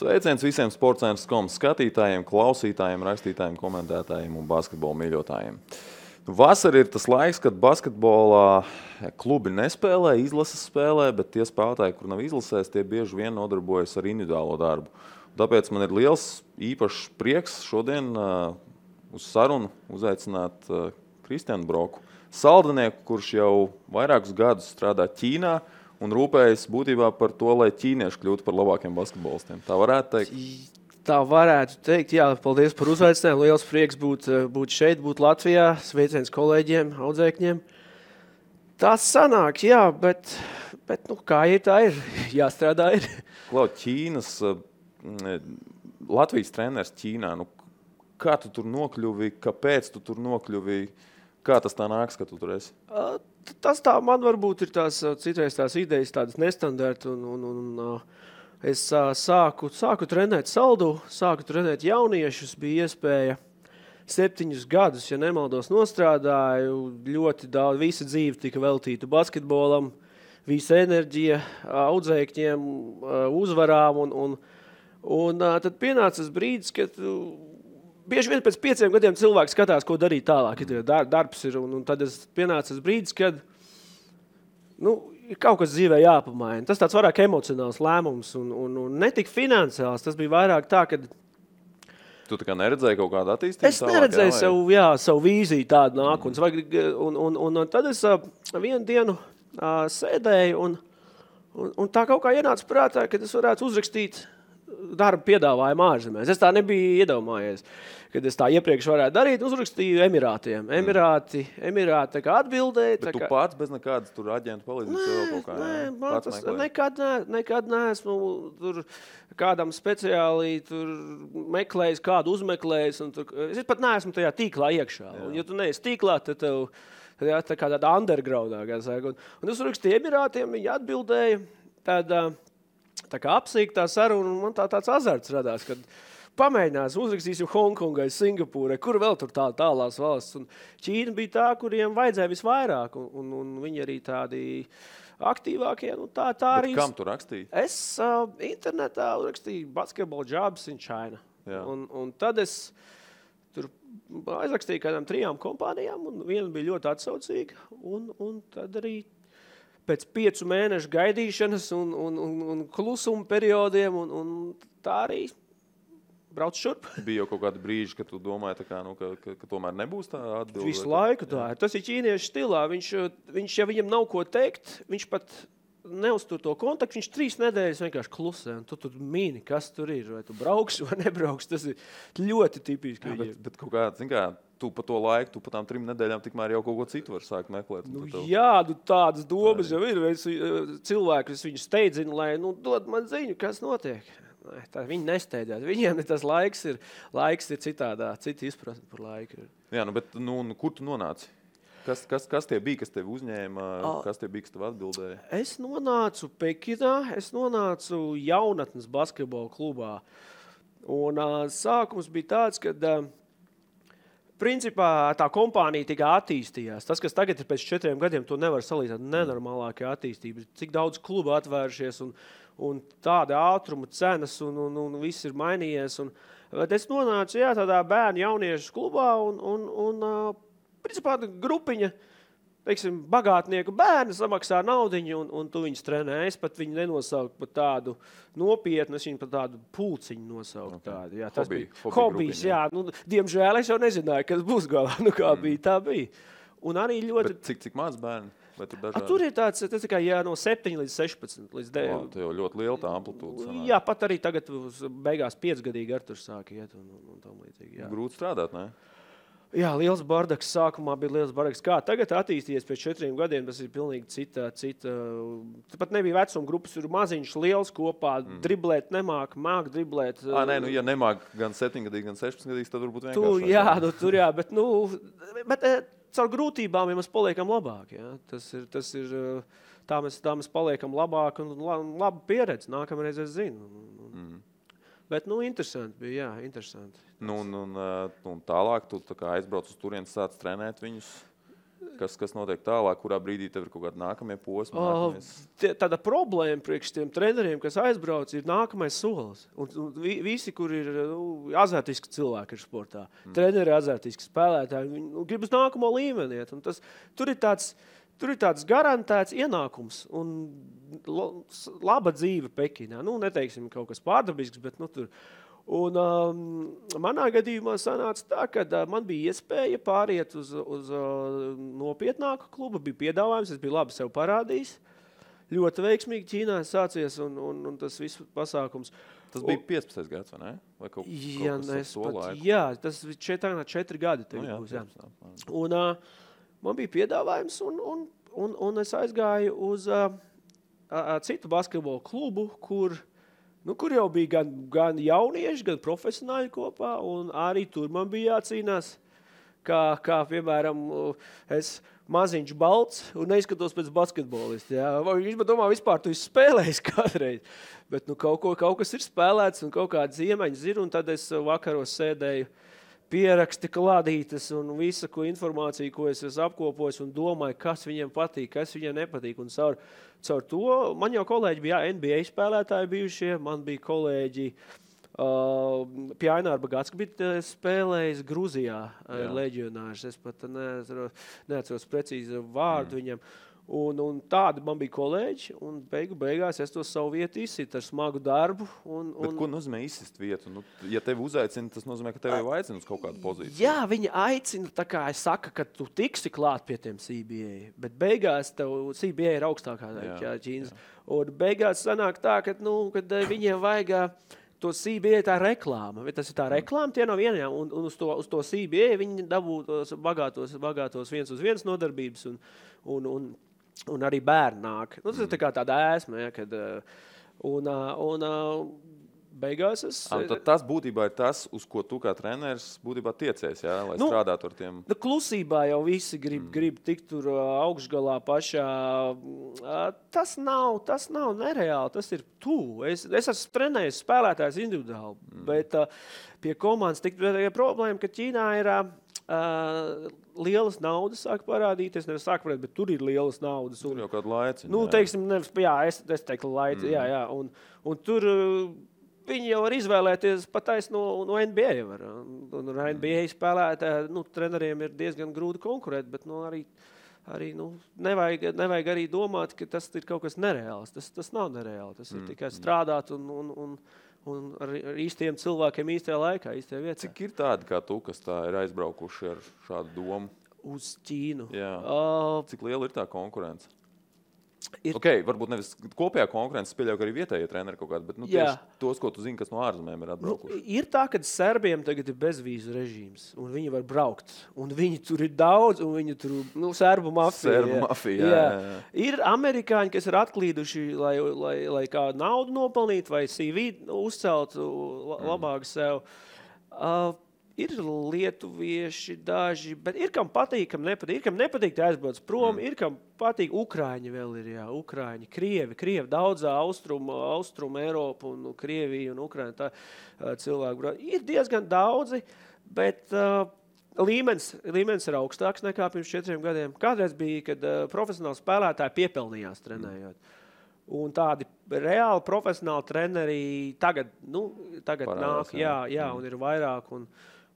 Sveiciens visiem Sportscentrs.com skatītājiem, klausītājiem, rakstītājiem, komentētājiem un basketbola mīļotājiem. Vasara ir tas laiks, kad basketbolā klubi nespēlē, izlases spēlē, bet tie spēlētāji, kur nav izlasēs, tie bieži vien nodarbojas ar individuālo darbu. Tāpēc man ir liels īpašs prieks šodien uz sarunu uzaicināt Kristianu Broku, saldinieku, kurš jau vairākus gadus strādā Ķīnā un rūpējas būtībā par to, lai ķīnieši kļūtu par labākiem basketbolistiem. Tā varētu teikt? Tā varētu teikt, jā, paldies par uzaicinājumu. Liels prieks būt šeit, būt Latvijā, sveiciens kolēģiem, audzēkņiem. Tas sanāk, jā, bet nu, kā ir, tā ir. Jāstrādā ir. Klau, Ķīnas, Latvijas treneris Ķīnā, nu, kā tu tur nokļuvi, kāpēc tu tur nokļuvi, kā tas tā nāks, ka tu tur esi? Tas tā man varbūt ir citreiz tās idejas tādas nestandarta un es sāku trenēt saldu, sāku trenēt jauniešus, bija iespēja 7 gadus, ja nemaldos, nostrādāju, ļoti daudz, visa dzīve tika veltīta basketbolam, visa enerģija audzēkņiem, uzvarām un tad pienāca tas brīdis, kad bieži vien pēc 5 gadiem cilvēks skatās, ko darīt tālāk, ja darbs ir, un tad pienāca tas brīdis, kad ir kaut kas dzīvē jāpamaina. Tas tāds vairāk emocionāls lēmums un ne tik finansiāls, tas bija vairāk tā, kad Tu tā kā neredzēji kaut kādu attīstību? Es neredzēju savu vīziju tādu nākotnes. Un tad es vienu dienu sēdēju un tā kaut kā ienāca prātā, ka es varētu uzrakstīt darba piedāvājumu ārzemēs. Es tā nebiju iedomājies, kad es tā iepriekš varētu darīt, uzrakstīju Emirātiem. Emirāti tā kā atbildēja. Bet tu pats bez nekādas tur aģentu palīdzības vēl kaut kā? Nē, nekad neesmu tur kādam speciāli tur meklējis, kādu uzmeklējis. Es pat neesmu tajā tīklā iekšā. Un, ja tu neesi tīklā, tad tev tā kā tāda undergroundā. Un es uzrakstīju Emirātiem, viņi atbildēja. Tad tā kā apsīktā saruna, un man tāds azarts radās, kad pamēģinās, uzrakstīsim Hongkongai, Singapūrai, kur vēl tur tālās valsts. Un Ķīna bija tā, kuriem vajadzēja visvairāk, un viņi arī tādi aktīvākie. Tā arī. Bet kam tu rakstīji? Es internetā rakstīju Basketball Jobs in China. Un tad es tur aizrakstīju kādām 3 kompānijām, un viena bija ļoti atsaucīga, un tad arī pēc 5 mēnešu gaidīšanas un klusuma periodiem, un tā arī brauc šurp. Bija jau kaut kādi brīži, kad tu domāji, tā kā, ka tomēr nebūs tā atbilde? Visu laiku tā ir. Tas ir ķīniešu stilā. Viņš, ja viņam nav ko teikt, viņš pat neuztur to kontaktu, viņš 3 nedēļas vienkārši klusē, un tu tur mīni, kas tur ir, vai tu brauksi vai nebrauksi. Tas ir ļoti tipiski. Jā, bet kaut kā, zin kā, tu pa to laiku, tu pa tām 3 nedēļām tikmēr jau kaut ko citu var sākt meklēt. Tādas domas jau ir. Cilvēki, es viņu steidzinu, lai dod man ziņu, kas notiek. Viņi nesteidzās. Viņiem tas laiks ir citādā, cita izpratne par laiku. Jā, bet kur tu nonāci? Kas tie bija, kas tevi uzņēma, kas tie bija, kas tev atbildēja? Es nonācu Pekinā, es nonācu jaunatnes basketbola klubā. Un sākums bija tāds, kad principā tā kompānija tikai attīstījās. Tas, kas tagad ir pēc 4 gadiem, to nevar salīdzināt nenormālākajā attīstībā. Cik daudz klubu atvērušies un tāda ātruma cenas un viss ir mainījies. Bet es nonācu tādā bērnu jauniešu klubā un principā grupiņa, teiksim, bagātnieku bērni samaksā naudiņu un tu viņus trenē. Es pat viņu nenosauku par tādu nopietnu, es viņu par tādu pulciņu nosauku. Okay. Jā, tas bija hobijs, jā. Diemžēl es jau nezināju, kas būs galā. Kā bija, tā bija. Un arī ļoti... Bet cik maz bērni? Tur ir tāds tikai no 7 līdz 16. Līdz 9. Tā jau ļoti liela tā amplitūda sanāk. Jā, pat arī tagad beigās 5-gadīgi Arturs sāka iet un tam līdzīgi. Jā. Grūti strādāt, ne? Jā, liels bardaks. Sākumā bija liels bardaks. Kā tagad attīstījies pēc 4 gadiem, tas ir pilnīgi cita. Pat nebija vecuma grupas, ir maziņš, liels kopā, driblēt nemāk, māk driblēt. Ja nemāk gan 7-gadīgi, gan 16-gadīgi, tad varbūt vienkārši. Bet caur grūtībām ja mēs paliekam labāk. Ja? Tas ir tā mēs paliekam labāk un laba pieredze. Nākamreiz es zinu. Bet, interesanti bija, jā, interesanti. Un tālāk tu tā kā aizbrauc uz turienes, sāc trenēt viņus? kas notiek tālāk, kurā brīdī tev ir kaut kādi nākamie posmi? Tāda problēma priekš tiem treneriem, kas aizbrauc, ir nākamais solis. Un visi, kur ir azartiski cilvēki ir sportā, treneri azartiski spēlētāji, viņi grib uz nākamo līmeni. Tur ir tāds garantēts ienākums un laba dzīve Pekinā. Neteiksim kaut kas pārdabisks, bet tur. Un manā gadījumā sanāca tā, ka man bija iespēja pāriet uz nopietnāku klubu, bija piedāvājums, es biju labi sev parādījis. Ļoti veiksmīgi Ķīnā sācies un tas viss pasākums. Tas bija 15. gads, vai ne? Vai kaut kas to laiku? Jā, tas bija 4 gadi. Būs, jā. Un man bija piedāvājums un es aizgāju uz citu basketbolu klubu, kur jau bija gan jaunieši, gan profesionāļi kopā, un arī tur man bija jācīnās, kā piemēram, es maziņš balts un neizskatos pēc basketbolista. Jā. Viņš man domā, vispār tu esi spēlējis kādreiz, bet kaut kas ir spēlēts un kaut kādas iemaņas ir, un tad es vakaros sēdēju pieraksti klādītas un visu informāciju, ko es esmu apkopojis un domāju, kas viņiem patīk, kas viņiem nepatīk. Un caur to man jau kolēģi bija NBA spēlētāji bijušie, man bija kolēģi pie Aināra Bagats, bija spēlējis Gruzijā leģionārs. Es pat neatceros precīzi vārdu viņam. Un tādi man bija kolēģi, un beigās es to savu vietu izsitu ar smagu darbu. Bet ko nozīmē izsist vietu? Ja tevi uzaicina, tas nozīmē, ka tevi jau aicina uz kaut kādu pozīciju. Jā, viņi aicina, tā kā es saku, ka tu tiksi klāt pie tiem CBA, bet beigās tev CBA ir augstākā Ķīnas. Un beigās sanāk tā, kad viņiem vajag to CBA tā reklāma. Tas ir tā reklāma, tie nav vienajām, un uz to CBA viņi dabū tos bagātos 1-uz-1 nodarbības un arī bērni nāk. Tas ir tā kā tāda ēsma, ja, kad beigās tas būtībā ir tas, uz ko tu kā treneris būtībā tiecies, ja, lai strādātu ar tiem. Klusībā jau visi grib tikt tur augšgalā pašā. Tas nav nereāli, tas ir tuvu. Es esmu trenējis spēlētājs individuāli, bet pie komandas problēma, ka Ķīnā ir lielas naudas sāk parādīties, nevis sāk parādīt, bet tur ir lielas naudas. Tur jau kādu laici. Teiksim, es teiktu laici, jā. Un tur viņi jau var izvēlēties patais no NBA. Un NBA spēlētāji, treneriem ir diezgan grūti konkurēt, bet arī nevajag arī domāt, ka tas ir kaut kas nereāls. Tas nav nereāli. Tas ir tikai strādāt un ar īstiem cilvēkiem īstajā laikā, īstajā vietā. Cik ir tādi kā tu, kas tā ir aizbraukuši ar šādu domu? Uz Ķīnu. Jā. Cik liela ir tā konkurence? Varbūt nevis kopējā konkurence, pieļauj, ka arī vietējie treneri kaut kādi, bet tieši tos, ko tu zini, kas no ārzemēm ir atbraukuši. Ir tā, ka serbiem tagad ir bezvīzu režīms, un viņi var braukt, un viņi tur ir daudz, un viņi tur, serbu mafija. Jā. Ir amerikāņi, kas ir atklīduši, lai kā naudu nopelnīt, vai CV uzcelt labāk sev. Ir lietuvieši daži, bet ir kam patīk, kam nepatīk. Ir kam nepatīk, tā aizbrauc prom, ir kam patīk. Ukraiņi vēl ir, Ukraiņi, Krievi, daudzā austrumu Eiropu un Krieviju un Ukraiņu tā cilvēku. Ir diezgan daudzi, bet līmenis ir augstāks nekā pirms 4 gadiem. Kādreiz bija, kad profesionāli spēlētāji piepelnījās trenējot. Un tādi reāli profesionāli treneri tagad parādās, nāk, jā, un ir vairāk.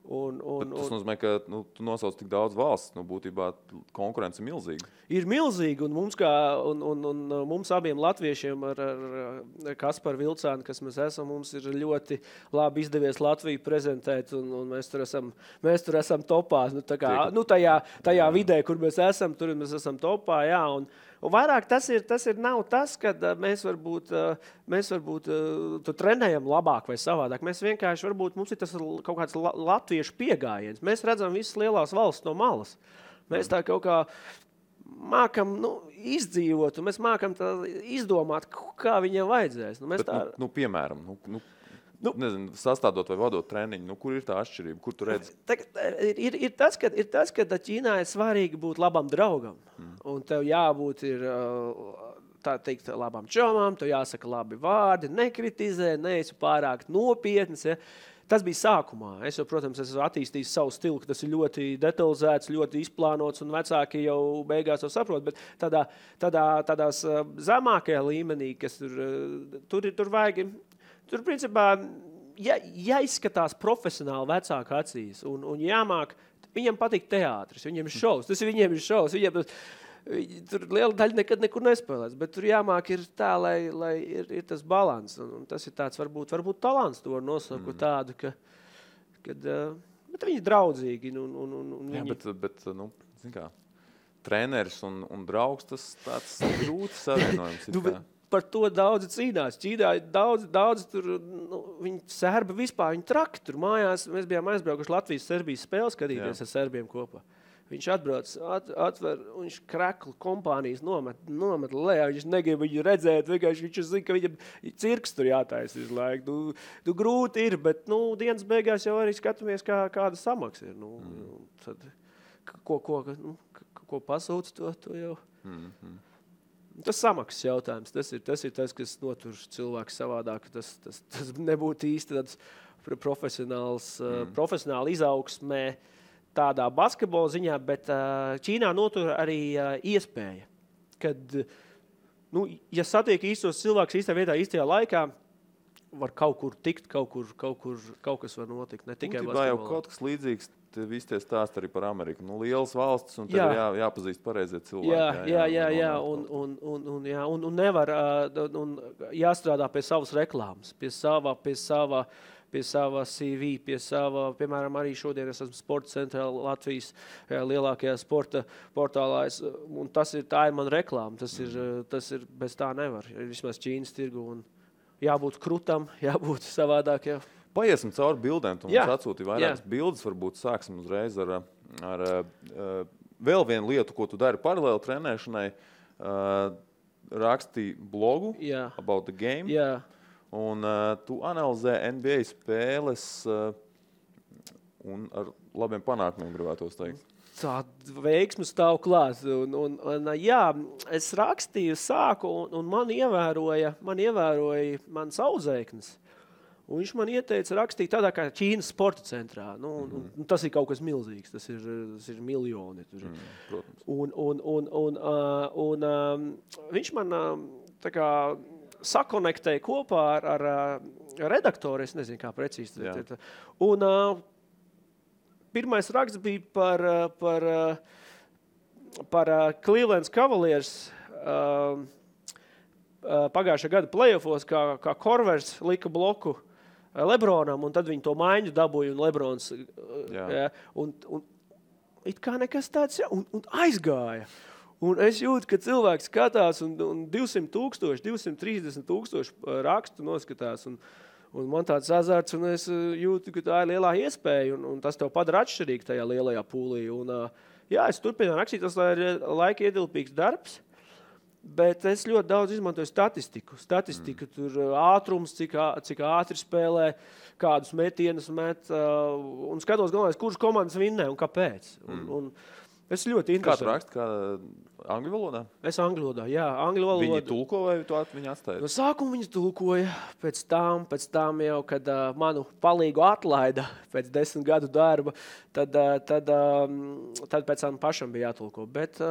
Tas nozīmē, ka tu nosauc tik daudz valsts, būtībā konkurence ir milzīga. Ir milzīga, un mums abiem latviešiem ar Kasparu Vilcānu, kas mēs esam, mums ir ļoti labi izdevies Latviju prezentēt, un mēs tur esam topā. Tajā vidē, kur mēs esam, tur mēs esam topā, jā, un vairāk tas nav tas, kad mēs varbūt trenējam labāk vai savādāk. Mēs vienkārši mums ir tas kaut kāds latviešu piegājiens. Mēs redzam visas lielās valsts no malas. Mēs tā kaut kā mākam izdzīvot, un mēs mākam izdomāt, kā viņiem vajadzēs. Piemēram, nezinu, sastādot vai vadot treniņu, kur ir tā atšķirība, kur tu redzi? Ir tas, ka Ķīnā ir svarīgi būt labam draugam, un tev jābūt tā teikt labām čomām, tev jāsaka labi vārdi, nekritizē, neesi pārāk nopietns, ja. Tas bija sākumā. Es jau, protams, esmu attīstījis savu stilu, ka tas ir ļoti detalizēts, ļoti izplānots, un vecāki jau beigās to saprot. Bet tādās zemākajā līmenī, kas tur vajag, tur principā jāizskatās profesionāli vecāku acīs un jāmāk, viņam patīk teātris, viņiem ir šovs, viņiem ir šovs, tur liela daļa nekad nekur nespēlēs, bet tur jāmāk ir tā, lai ir tas balans. Un tas ir tāds, varbūt talants to var nosaukt tādu, bet viņi ir draudzīgi. Jā, bet zin kā, treneris un draugs, tas tāds grūti savienojums. Par to daudzi cīnās. Ķīnā daudz tur, viņi serbi vispār, viņi traki tur mājās. Mēs bijām aizbraukuši Latvijas-Serbijas spēles skatīties ar serbiem kopā. Viņš atbrauc, atver, un viņš kreklu kompānijas nomet lejā, viņš negrib viņu redzēt, vienkārši viņš zina, ka viņam cirks tur jātaisa visu laiku. Grūti ir, bet dienas beigās jau arī skatāmies, kāda samaksa ir. Tad, ko pasūc, to jau. Tas samaksas jautājums, tas ir tas, kas notur cilvēku savādāk. Tas nebūtu īsti tāds profesionāli izaugsmē, tādā basketbola ziņā, bet Ķīnā notur arī iespēja, kad, ja satiek īstos cilvēkus īstā vietā, īstajā laikā, var kaut kur tikt, kaut kas var notikt, ne tikai basketbolā. Jau kaut kas līdzīgs, visi tie stāsti arī par Ameriku. Lielas valstis, un tev jāpazīst pareizie cilvēki. Jā, un nevar, un jāstrādā pie savas reklāmas, pie sava CV, pie sava, piemēram, arī šodien es esmu Sporta centrā Latvijas lielākajā sporta portālā, un tā ir man reklāma, tas ir bez tā nevar, vismaz Ķīnas tirgu, un jābūt krutam, jābūt savādāk, jā. Paiesim cauri bildēm, tu mums atsūti vairākas bildes, varbūt sāksim uzreiz ar vēl vienu lietu, ko tu dari paralēli trenēšanai, rakstīji blogu About the Game. Jā. Un tu analizē NBA spēles un ar labiem panākumiem gribētos teikt. Tā veiksme stāv klāt. Es rakstīju, sāku, un man ievēroja mans audzēknis. Un viņš man ieteica rakstīt tādā kā Ķīnas sporta centrā. Tas ir kaut kas milzīgs, tas ir miljoni. Protams. Un viņš man tā kā sakonektēja kopā ar redaktoru, es nezinu, kā precīzi. Un pirmais raksts bija par Cleveland Cavaliers pagājušā gada playoffos, kā Korvers lika bloku Lebronam, un tad viņi to maiņu dabūja, un Lebrons un it kā nekas tāds, un aizgāja. Un es jūtu, ka cilvēks skatās un 200,000, 230,000 rakstu noskatās. Un man tāds azarts, un es jūtu, ka tā ir lielā iespēja, un tas tev padara atšķirīgi tajā lielajā pūlī. Un, es turpinu rakstīt, tas ir laika ietilpīgs darbs, bet es ļoti daudz izmantoju statistiku. Tur ātrums, cik ātri spēlē, kādus metienus met, un skatos galvenais, kurš komandas vinnē un kāpēc. Un es ļoti interesanti. Kā tu raksti? Kā angļu valodā? Es angļu valodā, jā. Angļu valodā. Viņi tulko vai tu viņi atstāja? No sākuma viņas tulkoja, pēc tam jau, kad manu palīgu atlaida pēc 10 gadu darba, tad pēc tam pašam bija jātulko. Bet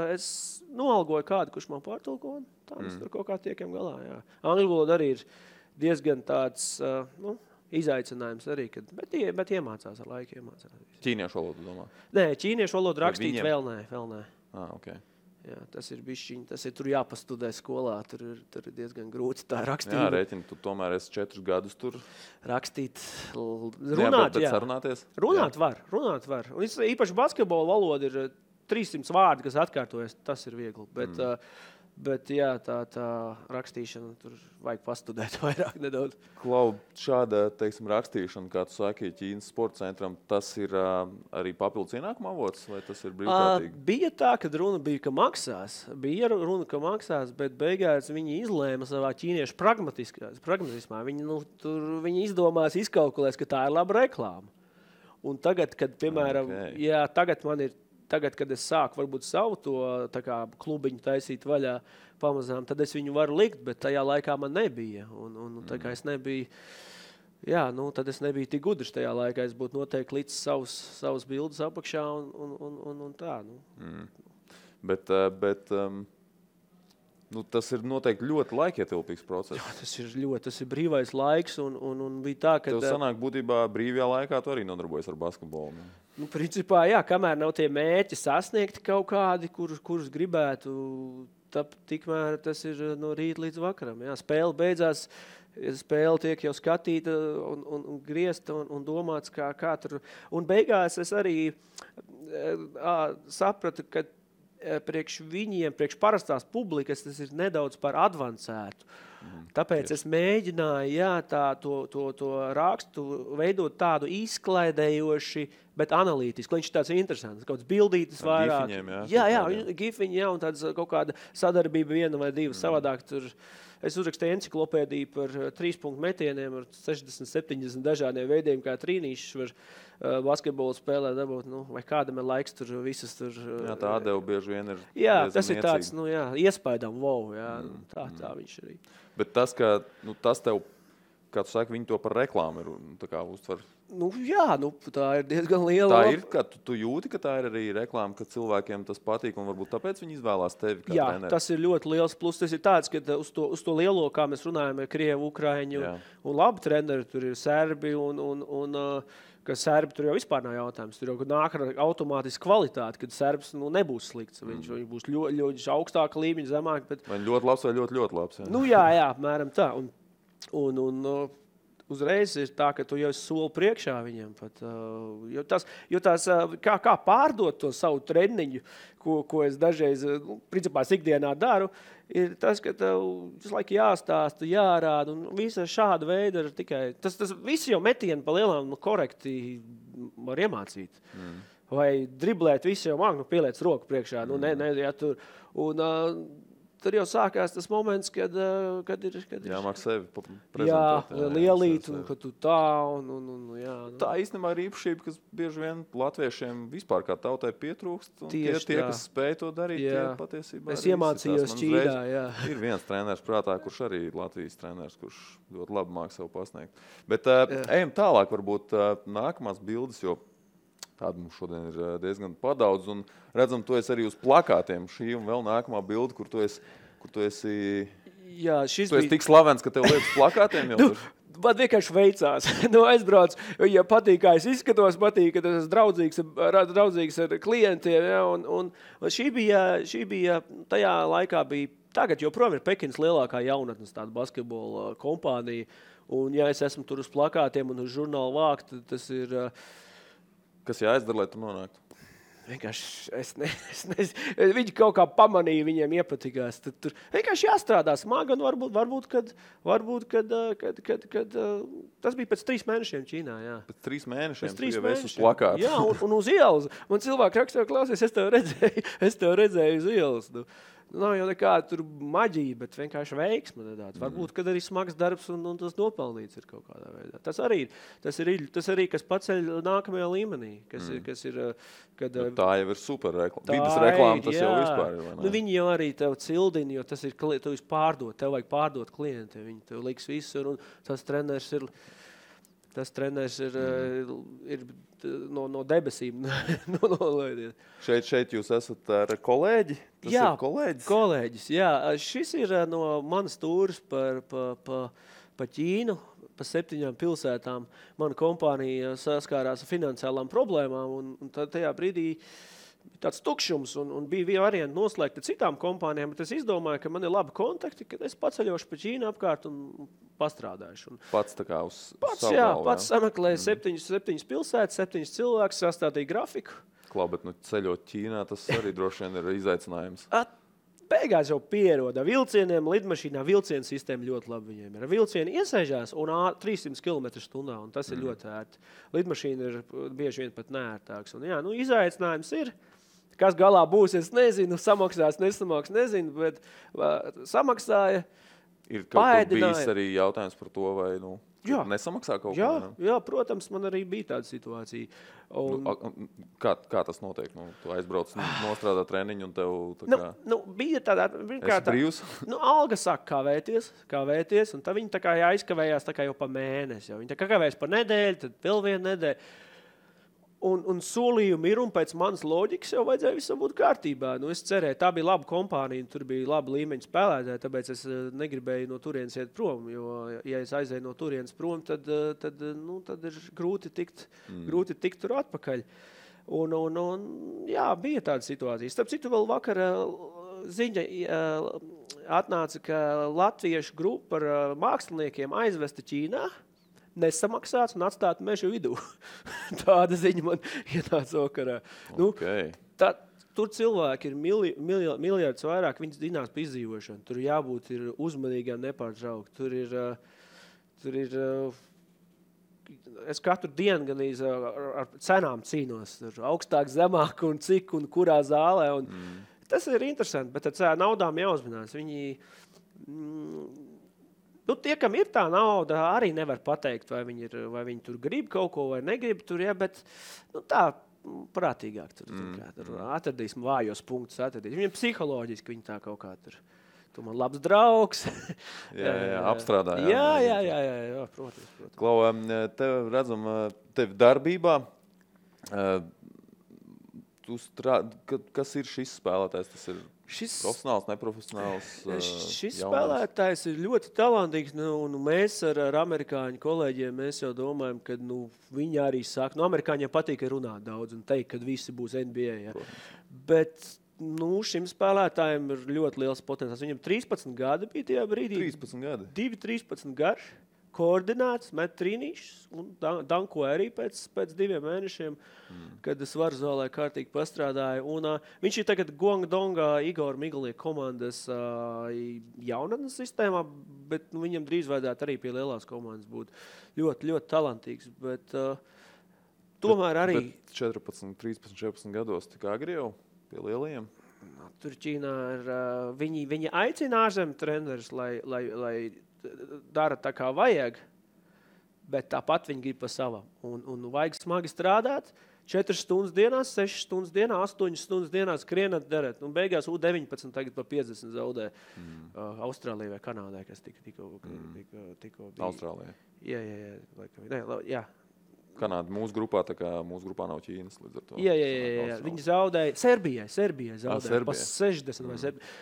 es noalgoju kādu, kurš man pārtulko, un tā mēs tur kaut kā tiekam galā, jā. Angļu valoda arī ir diezgan tāds, izaicinājums arī, bet iemācās ar laiku. Ķīniešu valodu, domā? Nē, ķīniešu valodu rakstīt vēl nē. Okay. Jā, tas ir bišķiņ, tur jāpastudē skolā, tur ir diezgan grūti tā rakstīt. Jā, rēķini, tu tomēr esi 4 gadus tur. Rakstīt, runāt, jā. Sarunāties? Runāt var. Un īpaši basketbola valoda ir 300 vārdi, kas atkārtojas, tas ir viegli, bet jā, tā rakstīšana, tur vajag pastudēt vairāk nedaudz. Klau, šāda, teiksim, rakstīšana, kā tu saki, Ķīnas sporta centram, tas ir arī papildus ienākuma avots, vai tas ir brīvprātīgi? Bija tā, kad runa bija, ka maksās, bet beigās viņi izlēma savā ķīniešu pragmatismā. Viņi izdomās, izkalkulēs, ka tā ir laba reklāma. Un tagad, kad, piemēram, Tagad, kad es sāku varbūt savu to tā kā klubiņu taisīt vaļā pamazām, tad es viņu varu likt, bet tajā laikā man nebija. Un tā kā es nebiju, Jā, nu, tad es nebiju tik gudrs tajā laikā. Es būtu noteikti līdz savus bildes apakšā un tā. Nu. Bet tas ir noteikti ļoti laikietilpīgs process. Jā, tas ir brīvais laiks un bija tā, ka... Tev sanāk būtībā brīvajā laikā tu arī nodarbojies ar basketbolu. Ne? Nu, principā, jā, kamēr nav tie mērķi sasniegti kaut kādi, kurus gribētu, tikmēr tas ir no rīta līdz vakaram. Jā, spēle beidzās, spēle tiek jau skatīta un griezta un domāts, kā tur. Un beigās es arī sapratu, ka priekš viņiem, priekš parastās publikas, tas ir nedaudz par advancētu. Tāpēc es mēģināju to rakstu veidot tādu izklaidējoši, bet analītiski. Viņš ir tāds interesants, kaut kāds bildītis vairāk. Gifiņi, un tāds kaut kāda sadarbība viena vai divas savādāk. Es uzrakstīju enciklopēdiju par 3-punktu metieniem ar 60-70 dažādiem veidiem, kā trīnīšus var basketbolu spēlē dabūt, vai kādam ir laiks tur visas tur... Jā, tā atdeva bieži vien ir tas ir tāds, iespaidam, tā viņš arī. Bet tas, ka tas tev, kā tu saki, viņi to par reklāmu ir tā kā uztver. Tā ir diezgan liela. Tā ir, ka tu jūti, ka tā ir arī reklāma, ka cilvēkiem tas patīk un varbūt tāpēc viņi izvēlās tevi kā treneri. Tas ir ļoti liels plus. Tas ir tāds, ka uz to lielo, kā mēs runājam, Krievu, Ukraiņu un labi treneri, tur ir serbi un ka serbi tur jau vispār nav jautājums. Tur jau nāk ar automātisku kvalitāti, kad serbs nebūs slikts. Viņš būs ļoti augstāka līmeņa, zemāk. Bet... Vai ļoti labs vai ļoti, ļoti labs. Jā, apmēram tā. Un uzreiz ir tā, ka tu jau esi soli priekšā viņiem. Pat, jo tās, kā pārdot to savu treniņu, ko es dažreiz, principā, ikdienā daru, ir tas, ka tev visu laiku jāstāsta, jārāda, un visa šāda veida ir tikai... Tas visi jau metieni pa lielām korekti var iemācīt. Vai driblēt, visi jau māk, pieliec roku priekšā, tur. Un tur jau sākās tas moments, kad ir... Jāmāk sevi prezentēt. Jā, lielīt, un kad tu tā, jā. Tā īstenībā ir īpašība, kas bieži vien latviešiem vispār kā tautai pietrūkst. Tie, kas spēj to darīt, tie patiesībā es iemācījos Ķīnā, jā. Ir viens treneris prātā, kurš arī Latvijas treneris, kurš ļoti labi māk sev pasniegt. Bet ejam tālāk, varbūt nākamās bildes, jo tāda mums šodien ir diezgan padaudz, un redzam, tu esi arī uz plakātiem. Šī un vēl nākamā bilde, kur tu esi tik slavens, ka tev liekas plakātiem jau tur. Man vienkārši veicās. Aizbrauc, ja patīk, kā es izskatos, patīk, ka tas draudzīgs ar klientiem. Ja, un šī bija, tajā laikā bija, tagad joprojām ir Pekinas lielākā jaunatnes tāda basketbola kompānija. Un ja es esmu tur uz plakātiem un uz žurnālu vākt, tas ir... Kas jāizdara, lai tu nonāktu? Vienkārši viņi kaut kā pamanīja, viņiem iepatikās. Tad tur vienkārši jāstrādā smagi, un varbūt, kad tas bija pēc 3 mēnešiem Ķīnā, jā. Pēc 3 mēnešiem tu jau esi uz plakāta. Jā, un uz ielas. Man cilvēki rakstīja, klausies, es tev redzēju uz ielas. Nav jau nekāda tur maģija, bet vienkārši veiksme. Varbūt, kad arī smags darbs un tas nopelnīts ir kaut kādā veidā. Tas arī kas paceļ nākamajā līmenī. Kas ir, kad, tā jau ir super reklāma. Vides reklāma tas jau vispār ir. Vai ne? Viņi jau arī tev cildina, jo tas ir, tu esi pārdot, tev vajag pārdot klienti. Viņi tev liks visur, un tas treneris ir... Tas treneris ir no debesīm. Šeit jūs esat ar kolēģi? Tas ir kolēģis? Kolēģis, jā. Šis ir no manas tūras pa Ķīnu, pa 7 pilsētām. Mana kompānija saskārās ar finansiālām problēmām, un tajā brīdī tāds tukšums, un bija varianti noslēgt ar citām kompānijām, bet es izdomāju, ka man ir labi kontakti, kad es paceļošu pa Ķīnu apkārt un pastrādājuši. Pats tā kā uz savu galvu, pats sameklēju 7 pilsētas, 7 cilvēkus, sastādīju grafiku. Klau, bet ceļot Ķīnā, tas arī droši vien ir izaicinājums. Beigās jau pieroda vilcieniem, lidmašīnā vilcienu sistēma ļoti labi viņiem ir. Vilcieni iesēžās un 300 km/h, un tas ir ļoti ērti. Lidmašīna ir bieži vien pat neērtāks. Un, izaicinājums ir. Kas galā būs, es nezinu, samaksās, nesamaksās, nezinu, bet samaksāja. Ir kaut kur bijis arī jautājums par to, vai Nesamaksā kaut jā, ko? Jā, protams, man arī bija tāda situācija. Un... Kā tas notiek? Tu aizbrauc nostrādā treniņu un tev bija tāda... Esi brīvs? Alga saka kavēties, un tad viņi tā kā aizkavējās tā kā jau pa mēnesi. Viņi tā kā kavējas pa nedēļu, tad vēl vienu nedēļu. Un solījumi ir, un pēc manas loģikas jau vajadzēja visam būt kārtībā. Es cerēju, tā bija laba kompānija, tur bija laba līmeņa spēlētāji, tāpēc es negribēju no turienes iet prom, jo, ja es aizēju no turienes prom, tad ir grūti tikt tur atpakaļ. Jā, bija tāda situācija. Starp citu, vēl vakar ziņa atnāca, ka latviešu grupa ar māksliniekiem aizvesta Ķīnā, nesamaksāts un atstāt mežu vidū. Tāda ziņa man ienāca vakarā. Okay. Tur cilvēki ir miljardus vairāk, viņas dinās pa izdzīvošanu. Tur jābūt ir uzmanīgām, nepārtraukt. Tur ir es katru dienu gan ar cenām cīnos. Tur augstāk, zemāk un cik un kurā zālē. Tas ir interesanti, bet ar naudām jāuzmanās. Tie, kam ir tā nauda, arī nevar pateikt, vai viņi tur grib kaut ko vai negrib tur, ja, bet tā prātīgāk tur atradīsim vājos punktus. Viņam psiholoģiski viņi tā kaut kā tur. Tu man labs draugs. jā, apstrādā. Jā, protams. Klau, tev redzam, tev darbībā, kas ir šis spēlētājs? Tas ir profesionāls, neprofesionāls, šis spēlētājs ir ļoti talantīgs, un mēs ar amerikāņu kolēģiem mēs jau domājam, ka viņi arī saka, amerikāņiem patīk runāt daudz un teikt, ka visi būs NBA. Ja. Bet šim spēlētājiem ir ļoti liels potenciāls. Viņam 13 gadi bija tajā brīdī. 13 gadi? 13 garš, koordinēts, met trīnīšus un danko arī pēc 2 mēnešiem, kad es varu zālē kārtīgi pastrādāju. Un, viņš ir tagad Guangdongā Igor Miglieka komandas jaunatnes sistēmā, bet viņam drīz vajadzētu arī pie lielās komandas būt ļoti, ļoti talantīgs. Bet tomēr arī... Bet 14, 13, 14 gados tik agri jau pie lielajiem? Tur Ķīnā ir... Viņi aicina ārzemju trenerus, lai dara tā kā vajag, bet tāpat viņi grib pa savam. Un vajag smagi strādāt, 4 stundas dienā, 6 stundas dienā, 8 stundas dienā skrienat darēt. Un beigās U19 tagad pa 50 zaudē Austrālijai vai Kanādai, kas tikko bija. Austrālijai? Jā. Kanāda mūsu grupā, tā kā mūsu grupā nav Ķīnas līdz ar to. Jā. Viņi zaudēja, Serbijai zaudēja pa 60 vai 70.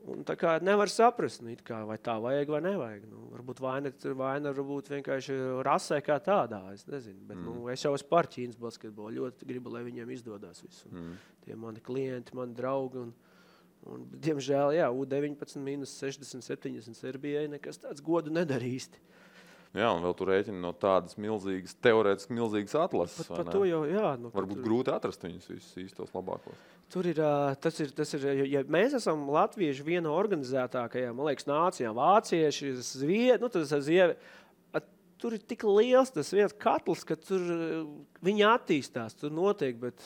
Un tā kā nevar saprast, vai tā vajag vai nevajag. Varbūt vaina varbūt vienkārši rasē kā tādā, es nezinu. Bet es jau esmu par Ķīnas basketbolu, ļoti gribu, lai viņiem izdodas visu. Tie mani klienti, mani draugi. Un diemžēl, U19 minus 60, 70 Serbijai nekas tāds godu nedarīsti. Jā, un vēl tur rēķina no tādas milzīgas, teorētiski milzīgas atlases. Par to jau, jā. Varbūt grūti atrast viņus visus īstos labākos. Tur ir, tas ir, ja mēs esam latvieši viena organizētākajām, man liekas, nācijām, vācieši, tur ir tik liels tas viens katls, ka tur viņi attīstās, tur notiek, bet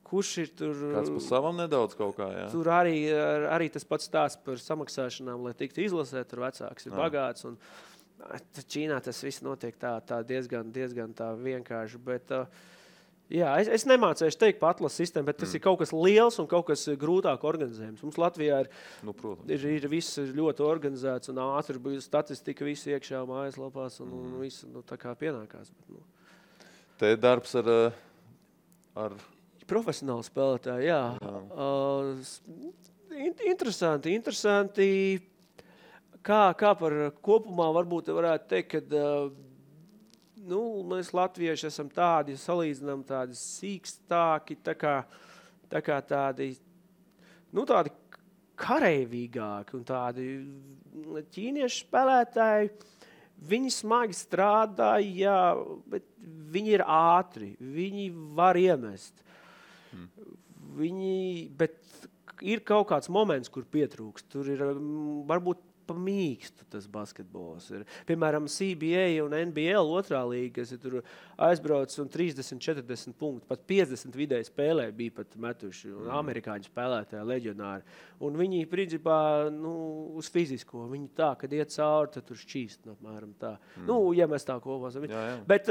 kurš ir tur... Kāds pa savam nedaudz kaut kā, jā. Tur arī tas pats stāsts par samaksāšanām, lai tiktu izlasēt, tur vecāks ir bagāts, un Ķīnā tas viss notiek tā diezgan tā vienkārši, bet es nemācēšu teikt par atlases sistēmu, bet tas ir kaut kas liels un kaut kas grūtāk organizējums. Mums Latvijā ir viss ļoti organizēts un ātri bija statistika, viss iekšā mājaslapās un viss tā kā pienākās. Bet, Te darbs ar... Profesionāli spēlētāji, jā. Interesanti. Kā par kopumā varbūt varētu teikt, ka mēs latvieši esam tādi, salīdzinām tādi sīkstāki, tā kā tādi kareivīgāki un tādi ķīniešu spēlētāji, viņi smagi strādā, jā, bet viņi ir ātri, viņi var iemest. Bet ir kaut kāds moments, kur pietrūkst. Tur ir varbūt mīkstu tas basketbols ir. Piemēram, CBA un NBL otrā līga, kas ir tur aizbrauc un 30, 40 punktu, pat 50 vidēji spēlē bija pat metuši, un amerikāņu spēlētāji, leģionāri. Un viņi, principā, uz fizisko, viņi tā, kad iet cauri, tad tur šķīst, apmēram tā. Ja mēs tā kopā. Bet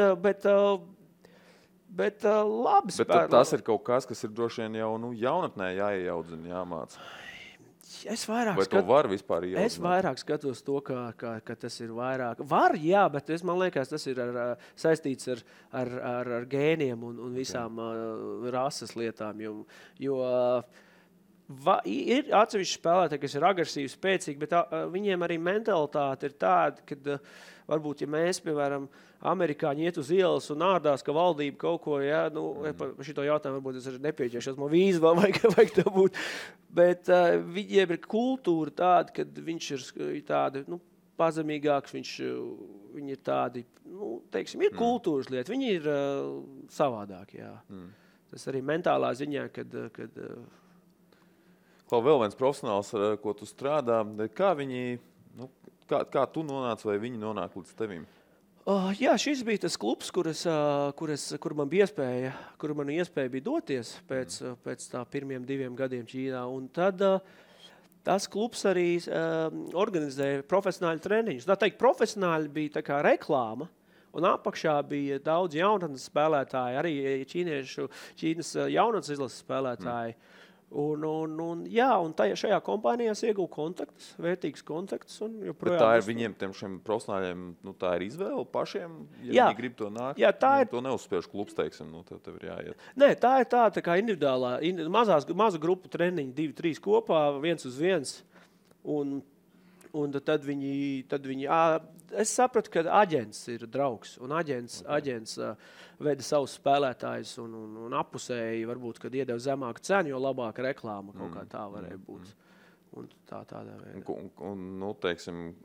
labi spēlē. Bet tas ir kaut kas ir droši vien jau jaunatnē jāiejaudzina, jāmāca. Vai to var vispār ieaudzīt? Es vairāk skatos to, ka tas ir vairāk. Var, jā, bet man liekas, tas ir saistīts ar gēniem un visām rases lietām. Jo ir atsevišķi spēlētāji, kas ir agresīvi, spēcīgi, bet viņiem arī mentalitāte ir tāda, ka varbūt, ja mēs, piemēram, amerikāņi iet uz ielas un ārdās, ka valdība kaut ko, par šito jautājumu varbūt es arī nepieķeršos, man vīzu vēl vajag tā būt, bet viņiem ir kultūra tāda, kad viņš ir tādi, pazemīgāks, viņi ir tādi, teiksim, ir kultūras lieta, viņi ir savādāki, jā. Tas arī mentālā ziņā, kad vēl viens profesionāls, ar ko tu strādā, kā viņi, kā tu nonāc vai viņi nonāk līdz tevim? Jā, šis bija tas klubs, kur man bija iespēja bija doties pēc tā pirmiem 2 gadiem Ķīnā. Un tad tas klubs arī organizēja profesionāļu treniņus. Tā teikt, profesionāļi bija tā kā reklāma, un apakšā bija daudz jaunatnes spēlētāji, arī Ķīnas jaunatnes izlases spēlētāji. Un šajā kompānijā iegūtu kontaktus, vērtīgus kontaktus. Bet tā ir viņiem, šiem profesionāļiem, tā ir izvēle pašiem, viņi grib to nākt. Jā, to neuzspiež klubs, teiksim, tev ir jāiet. Nē, tā ir tā kā individuālā, maza grupu treniņi, 2-3 kopā, 1-uz-1. Un tad viņi es sapratu, ka aģents ir draugs, un aģents veda savus spēlētājus un apusēji, varbūt, kad iedeva zemāku cenu, jo labāka reklāma kaut kā tā varēja būt. Un tādā veidā. Un teiksim,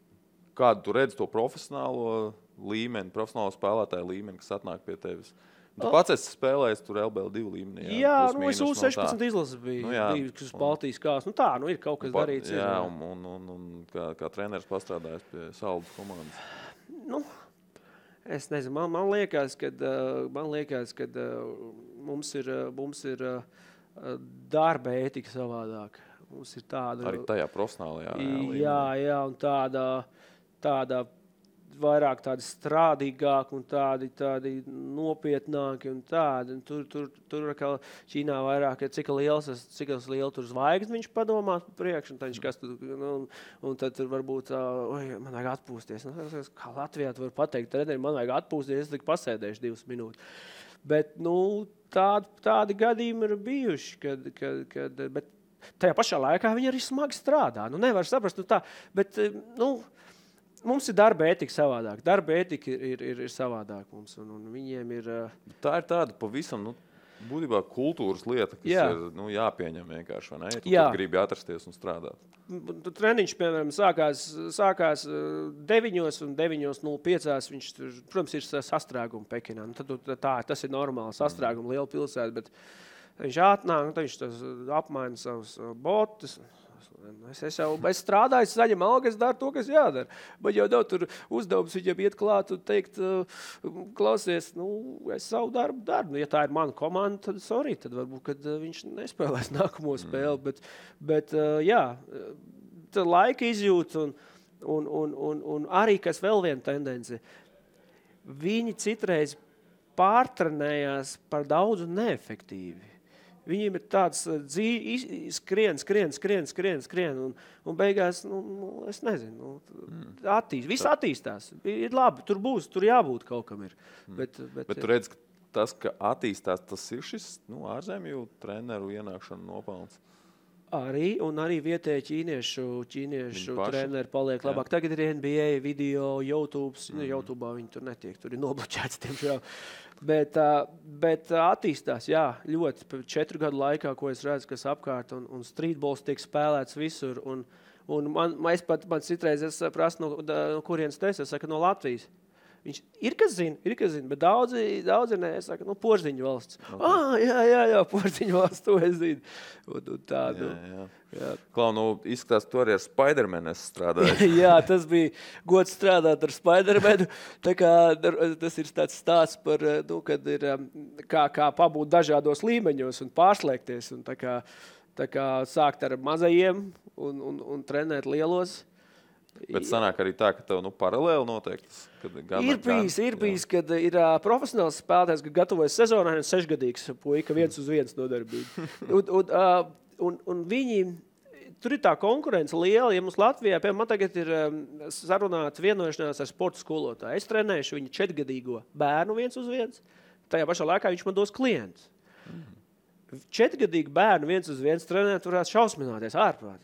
kādu tu redzi to profesionālo līmeni, profesionālo spēlētāju līmeni, kas atnāk pie tevis? Tu pats esi spēlējis tur LBL2 līmenī. Jā, es U16 izlases biju, kas uz Baltijas kās. Ir kaut kas darīts. Jā, un kā treneris pastrādājis pie Saldus komandas. Es nezinu, man liekas, ka mums ir darba ētika savādāk. Mums ir tāda... Arī tajā profesionālajā līmenī. Jā, un tāda vairāk tādi strādīgāki un tādi nopietnāki un tādi. Un tur kā Ķīnā vairāk, cik liela tur zvaigzni viņš padomā priekš, un tad viņš kas tur, un tad tur varbūt, man vajag atpūsties. Kā Latvijā tu var pateikt, treneri, man vajag atpūsties, es tik pasēdēšu 2 minūtes. Bet, tādi gadījumi ir bijuši, bet tajā pašā laikā viņi arī smagi strādā. Nevar saprast, bet, mums ir darba ētika savādāk. Darba ētika ir savādāk mums, un viņiem ir... Tā ir tāda pavisam, būtībā kultūras lieta, kas ir jāpieņem vienkārši, vai ne? Ja tu gribi atrasties un strādāt. Treniņš, piemēram, sākās 9 un 9:05. Viņš, protams, ir sastrēguma Pekinā. Tas ir normāli, sastrēguma liela pilsēta, bet viņš atnāk, viņš apmaina savus botus. Es strādāju, es saņemu algu, es daru to, kas jādara. Bet jau daudz tur uzdevums viņam iet klāt un teikt, klausies, es savu darbu daru. Ja tā ir mana komanda, tad varbūt, kad viņš nespēlēs nākamo spēli. Bet laika izjūt un arī, kas vēl viena tendence, viņi citreiz pārtrenējās par daudz un neefektīvi. Viņiem ir tāds skrien, un beigās, es nezinu, viss attīstās. Ir labi, tur jābūt kaut kam ir. Bet tu redz, ka tas, ka attīstās, tas ir šis ārzemju treneru ienākšana nopelns? Arī vietēji ķīniešu treneri paliek labāk. Tagad ir NBA video, YouTube'ā viņi tur netiek, tur ir nobloķēts tiemžēl. Bet attīstās, ļoti 4 gadu laikā, ko es redzu, kas apkārt, un streetballs tiek spēlēts visur, un man citreiz es prasu, no kurienes tu esi, es saku, no Latvijas. Viņš ir, kas zina, bet daudzi nē, saka, Porziņu valsts. Okay. Jā, Porziņu valsts, to es zinu. Un tādu. Jā. Klau, izskatās, tu arī ar Spidermanu strādāji. Jā, tas bija gods strādāt ar Spidermanu. Tā kā tas ir tāds stāsts par, kad ir kā pabūt dažādos līmeņos un pārslēgties. Un tā kā sākt ar mazajiem un trenēt lielos. Bet sanāk arī tā, ka tev paralēli noteikti. Ir bijis, kad ir profesionāls spēlētājs, kad gatavojas sezonai un 6-gadīgs puika 1-1 nodarbība. un viņi, tur ir tā konkurence liela, ja mums Latvijā, piemēram, man tagad ir sarunāts vienošanās ar sporta skolotāju. Es trenēšu viņu 4-gadīgo bērnu 1-1, tajā pašā laikā viņš man dos klientus. 4-gadīgu bērnu 1-1 trenēt varētu šausmināties ārprāt.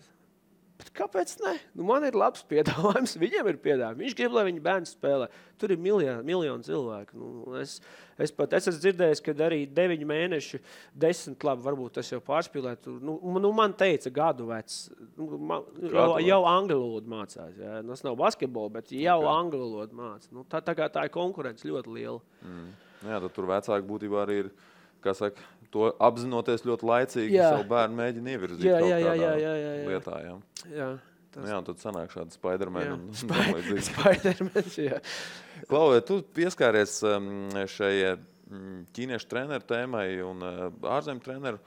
Bet kāpēc ne? Man ir labs piedāvājums, viņiem ir piedāvājums. Viņš grib, lai viņa bērns spēlē. Tur ir miljoni cilvēku. Es esmu dzirdējis, ka arī 9 mēneši, 10, labi, varbūt tas jau pārspīlēt. Man teica gadu vecs. Jau angļu valodu mācās. Jā. Tas nav basketbola, bet jau angļu valodu mācās. Tā ir konkurence ļoti liela. Jā, tad tur vecāki būtībā arī ir, kā saka, to apzinoties ļoti laicīgi, savu bērnu mēģina ievirzīt lietā. Jā, un tad sanāk šādi Spidermani. Spidermans, jā. Klau, tu pieskāries šai ķīniešu treneru tēmai un ārzemju treneru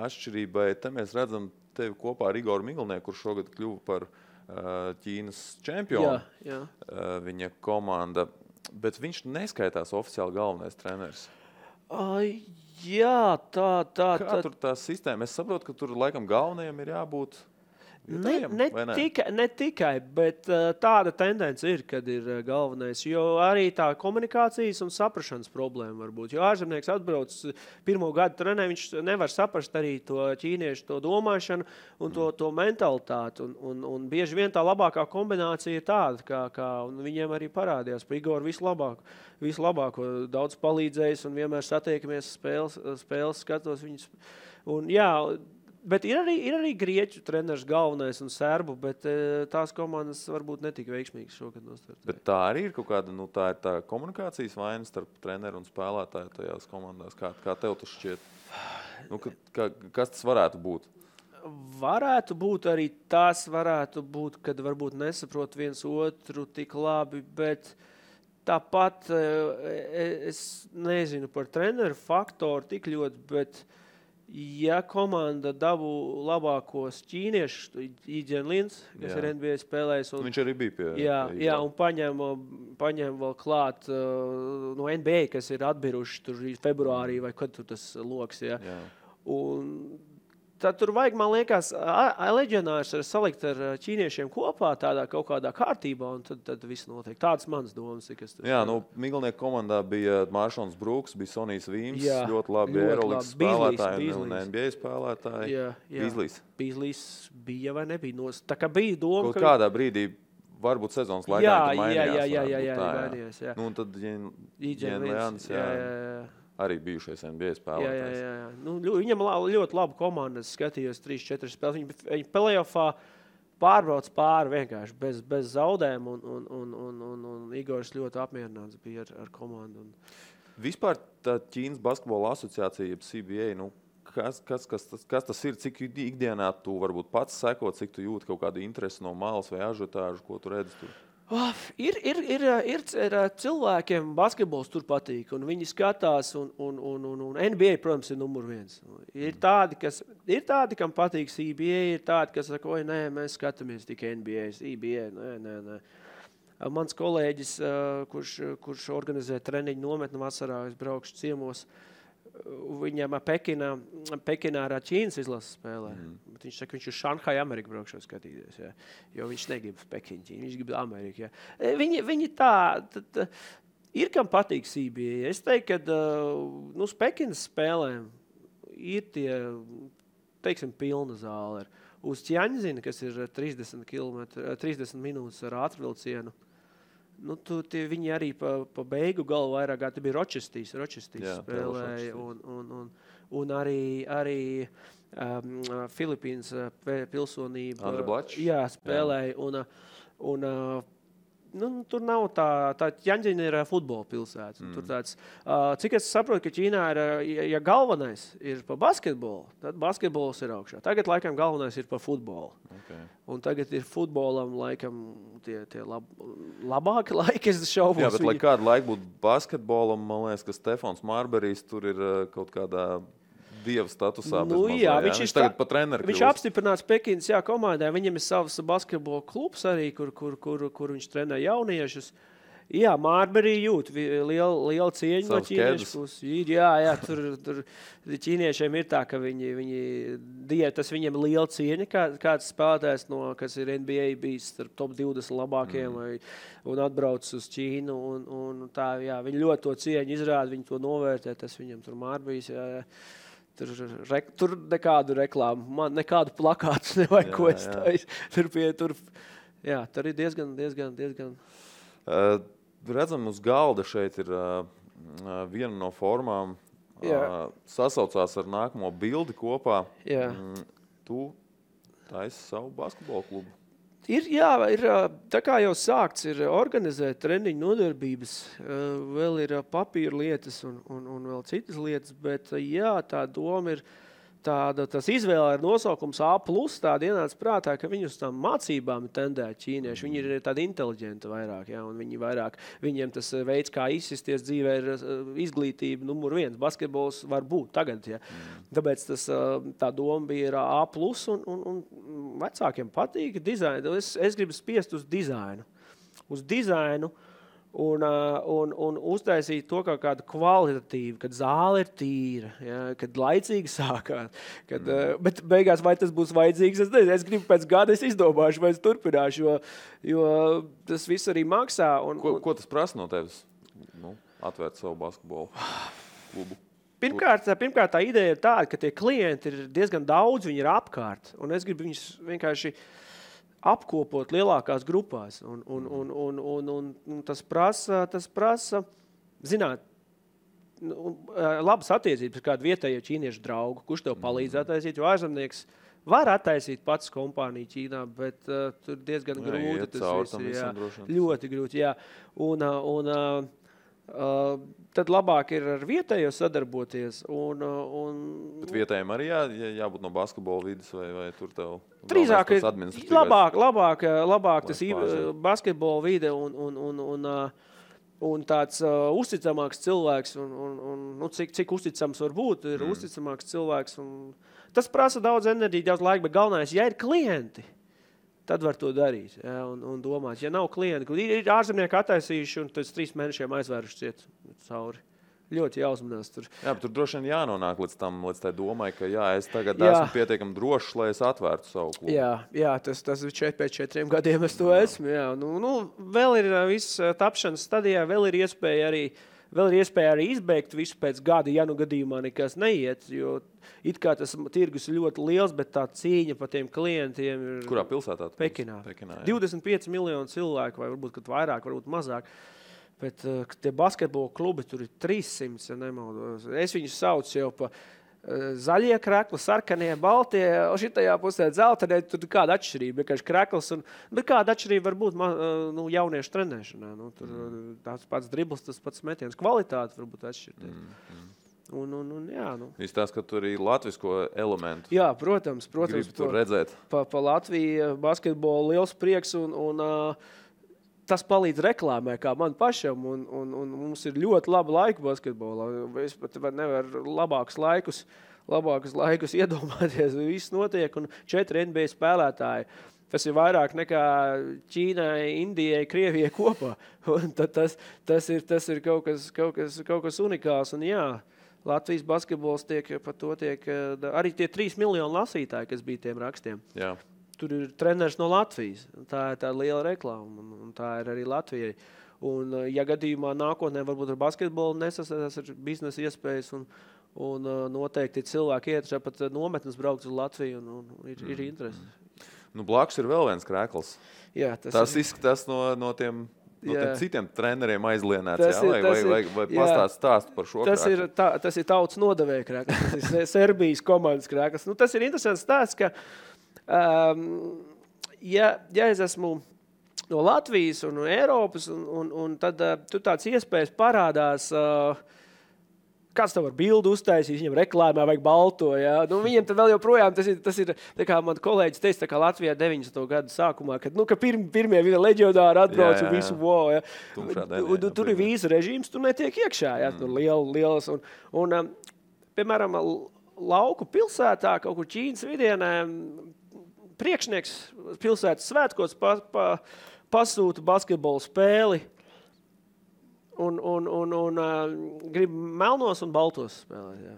atšķirībai. Te mēs redzam tevi kopā ar Igoru Miglnieku, kurš šogad kļuva par Ķīnas čempionu. Jā. Viņa komanda, bet viņš neskaitās oficiāli galvenais treneris. Jā, tā. Kā tur tā sistēma? Es saprotu, ka tur laikam galvenajam ir jābūt Ne tikai, bet tāda tendence ir, kad ir galvenais, jo arī tā komunikācijas un saprašanas problēma var būt. Jo ārzemnieks atbrauc pirmo gadu trenē, viņš nevar saprast arī to ķīniešu to domāšanu un to mentalitāti. Un bieži vien tā labākā kombinācija ir tāda, kā viņiem arī parādījās. Pa Igoru vislabāko daudz palīdzējis un vienmēr satiekamies spēles skatos viņus. Un jā, bet ir arī grieķu treneris galvenais un serbu, bet tās komandas varbūt netika veiksmīgas šogad nostartēt. Bet tā arī ir kaut kāda, tā ir tā komunikācijas vaina starp treneru un spēlētāju tajās komandās. Kā tev tas šķiet? Kas tas varētu būt? Varētu būt arī tas, kad varbūt nesaprot viens otru tik labi, bet tāpat es nezinu par treneru faktoru tik ļoti, bet ja komanda dabū labākos ķīniešus, Īģen Lins, kas ir NBA spēlējis. Viņš arī bija pie Jā, un paņem vēl klāt no NBA, kas ir atbiruši tur februārī, vai kad tur tas loks. Jā. Un tad tur vajag, man liekas, leģionārs salikt ar ķīniešiem kopā tādā kaut kādā kārtībā, un tad viss notiek. Tāds mans domas. Jā, Miglnieku komandā bija Māršons Brūks, bija Sonijs Vīms, ļoti labi Eirolīgas spēlētāji un NBA spēlētāji. Bīzlīs bija vai nebija? Tā kā bija doma, kaut kādā brīdī, varbūt sezonas laikā mainījās. Jā. Un tad Īģen Lins, arī bijušais NBA spēlētājs. Jā. Viņam ļoti laba komanda. Es skatījos 3-4 spēles. Viņi play-offā pārbrauc pāri vienkārši bez zaudēm. Un Igors ļoti apmierināts bija ar komandu. Vispār tā Ķīnas basketbola asociācija, CBA, kas tas ir? Cik ikdienā tu varbūt pats sekot, cik tu jūti kaut kādu interesi no malas vai ažiotāžu, ko tu redzi tur? Ir cilvēkiem basketbols tur patīk, un viņi skatās, un NBA, protams, ir numur 1. Ir tādi, kam patīk CBA, ir tādi, kas saka, nē, mēs skatāmies tikai NBA, CBA, nē. Mans kolēģis, kurš organizē treniņu nometni vasarā, es braukšu ciemos, viņam Pekinā ar Ķīnas izlases spēlē. Bet viņš saka, viņš uz Šanhai Ameriku braukšot skatīties. Jā. Jo viņš negrib Pekinu Ķīnu, viņš grib Ameriku. Jā. Viņi tā ir, kam patīk CBA. Es teiktu, ka uz Pekinas spēlēm ir tie, teiksim, pilna zāle. Uz Ķiaņzina, kas ir 30 minūtes ar ātrvilcienu, viņi arī pa beigu galu vairāk, te bija Ročestīs spēlēja, un arī Filipīnas pilsonība. Andra Blačs. Jā, spēlēja, un tur nav tā Ķiņģina ir futbola pilsēta. Tur tāds, cik es saprotu, ka Ķīnā ir, ja galvenais ir pa basketbolu, tad basketbols ir augšā. Tagad, laikam, galvenais ir pa futbolu. Okay. Un tagad ir futbolam, laikam, tie labāki laiki, es šaubos. Jā, bet lai kādu laiku būtu basketbolam, man liekas, ka Stefans Marberijs tur ir kaut kādā dieva statusā. Jā, viņš tagad pat treneri viņš apstiprināts Pekinas komandai. Viņam ir savs basketbola klubs arī, kur viņš trenē jauniešus. Jā, Marberī jūt liela cieņa no ķīniešu puses. Jā, tur ķīniešiem ir tā, ka tas viņiem liela cieņa, kāds spēlētājs, kas ir NBA bijis starp top 20 labākiem un atbrauc uz Ķīnu. Un tā, jā, viņi ļoti to cieņu izrāda, viņi to novērtē, tas viņam tur Marberīs, jā. Tur nekādu reklāmu, man nekādu plakātu nevajag, ko es taisu. Tur ir diezgan. Redzam, uz galda šeit ir viena no formām, sasaucās ar nākamo bildi kopā. Jā. Tu taisi savu basketbolu klubu. Ir tā kā jau sākts ir organizēt treniņu nodarbības, vēl ir papīra lietas un vēl citas lietas, bet jā, tā doma ir tas izvēle ir nosaukums A+, tāda ienāca prātā, ka viņi uz tām mācībām tendē ķīnieši. Viņi ir tādi inteliģenti vairāk, jā, un viņiem tas veids, kā izsisties dzīvē, ir izglītība numur 1. Basketbols var būt tagad, jā. Tāpēc tā doma bija ir A+, un vecākiem patīk dizainu. Es gribu spiest uz dizainu. Uz dizainu. Un uztaisīt to kā kādu kvalitatīvu, kad zāle ir tīra, ja, kad laicīgi sākāt. Bet beigās, vai tas būs vajadzīgs, es nezinu. Es gribu pēc gada, es izdomāšu, vai es turpināšu, jo tas viss arī maksā. Ko tas prasa no tevis? Atvērt savu basketbolu klubu? Pirmkārt, tā ideja ir tāda, ka tie klienti ir diezgan daudz, viņi ir apkārt. Un es gribu viņus vienkārši apkopot lielākās grupās. Un tas prasa, zināt, labas attiecības ar kādu vietējo ķīniešu draugu, kurš tev palīdz attaisīt, jo ārzemnieks var attaisīt pats kompāniju Ķīnā, bet tur diezgan grūti. Tas viss, ļoti grūti, jā. Tad labāk ir ar vietējo sadarboties. Bet vietējiem arī jābūt no basketbola vidas vai tur tev drīzāk ir labāk tas basketbola vide un tāds uzticamāks cilvēks cik uzticams var būt, ir uzticamāks cilvēks. Tas prasa daudz enerģiju, daudz laika, bet galvenais, ja ir klienti, tad var to darīt, jā, un domāt. Ja nav klienti, ir ārzemnieki attaisījuši un pēc 3 mēnešiem aizvēruši ciet cauri. Ļoti jāuzmanās tur. Jā, bet tur droši vien jānonāk līdz tai domai, ka es tagad esmu pietiekami drošs, lai es atvērtu savu klubu. Jā, tas pēc 4 gadiem es to esmu. Jā. Vēl ir viss tapšanas stadijā, vēl ir iespēja arī izbeigt visu pēc gada, ja gadījumā nekas neiet, jo it kā tas tirgus ir ļoti liels, bet tā cīņa par tiem klientiem ir... Kurā pilsētā? Pekinā 25 miljonu cilvēku, vai varbūt kad vairāk, varbūt mazāk. Bet tie basketbola klubi tur ir 300, ja nemaldos. Es viņus saucu jau pa zaļie krekli, sarkanie, baltie, šitajā pusē dzeltenē, tur kāda atšķirība, vienkārši krekls. Bet kāda atšķirība var būt jauniešu trenēšanā. Tur tāds pats dribls, tas pats metiens. Kvalitāte varbūt atšķirties. Izstāst, ka tur ir latvisko elementu. Jā, protams. Gribu tur redzēt. Pa Latviju basketbolu liels prieks un tas palīdz reklāmē, kā man pašam, un mums ir ļoti laba laika basketbolā. Es pat nevaru labākus laikus iedomāties. Viss notiek, un 4 NBA spēlētāji. Tas ir vairāk nekā Ķīnai, Indijai, Krievijai kopā. Un tas ir kaut kas unikāls. Un jā, Latvijas basketbols tiek arī tie 3 miljoni lasītāji, kas bija tiem rakstiem. Jā. Tur ir treneris no Latvijas. Tā ir tā liela reklāma, un tā ir arī Latvijai. Un, ja gadījumā nākotnē varbūt ar basketbolu nesasēdās ar biznesa iespējas, un noteikti cilvēki iet pat nometnes braukt uz Latviju, un ir interesi. Blakus ir vēl viens krēkls. Jā, tas izskatās no tiem citiem treneriem aizlienēts, vai pastāst par šo krēklu? Tas ir tautas nodevēja krēkls. Tas ir Serbijas komandas krēkls. Tas ir interesants stāsts, ka ja es esmu no Latvijas un no Eiropas, un tad tur tāds iespējas parādās, kāds tev var bildu uztaisīt, viņam reklāmā vajag balto, ja? Nu, viņiem tad vēl joprojām, tas ir tā kā man kolēģis teica, tā kā Latvijā 90. gadu sākumā, kad, ka pirmie leģionāri atbrauc un visu, wow, ja? Tur ir vīza režīms, tur netiek iekšā, ja? Tur lielas, un piemēram, lauku pilsētā, kaut kur Ķīnas vidienē, priekšnieks pilsētas svētkos pasūta basketbolu spēli, un grib melnos un baltos spēlēt. Jā.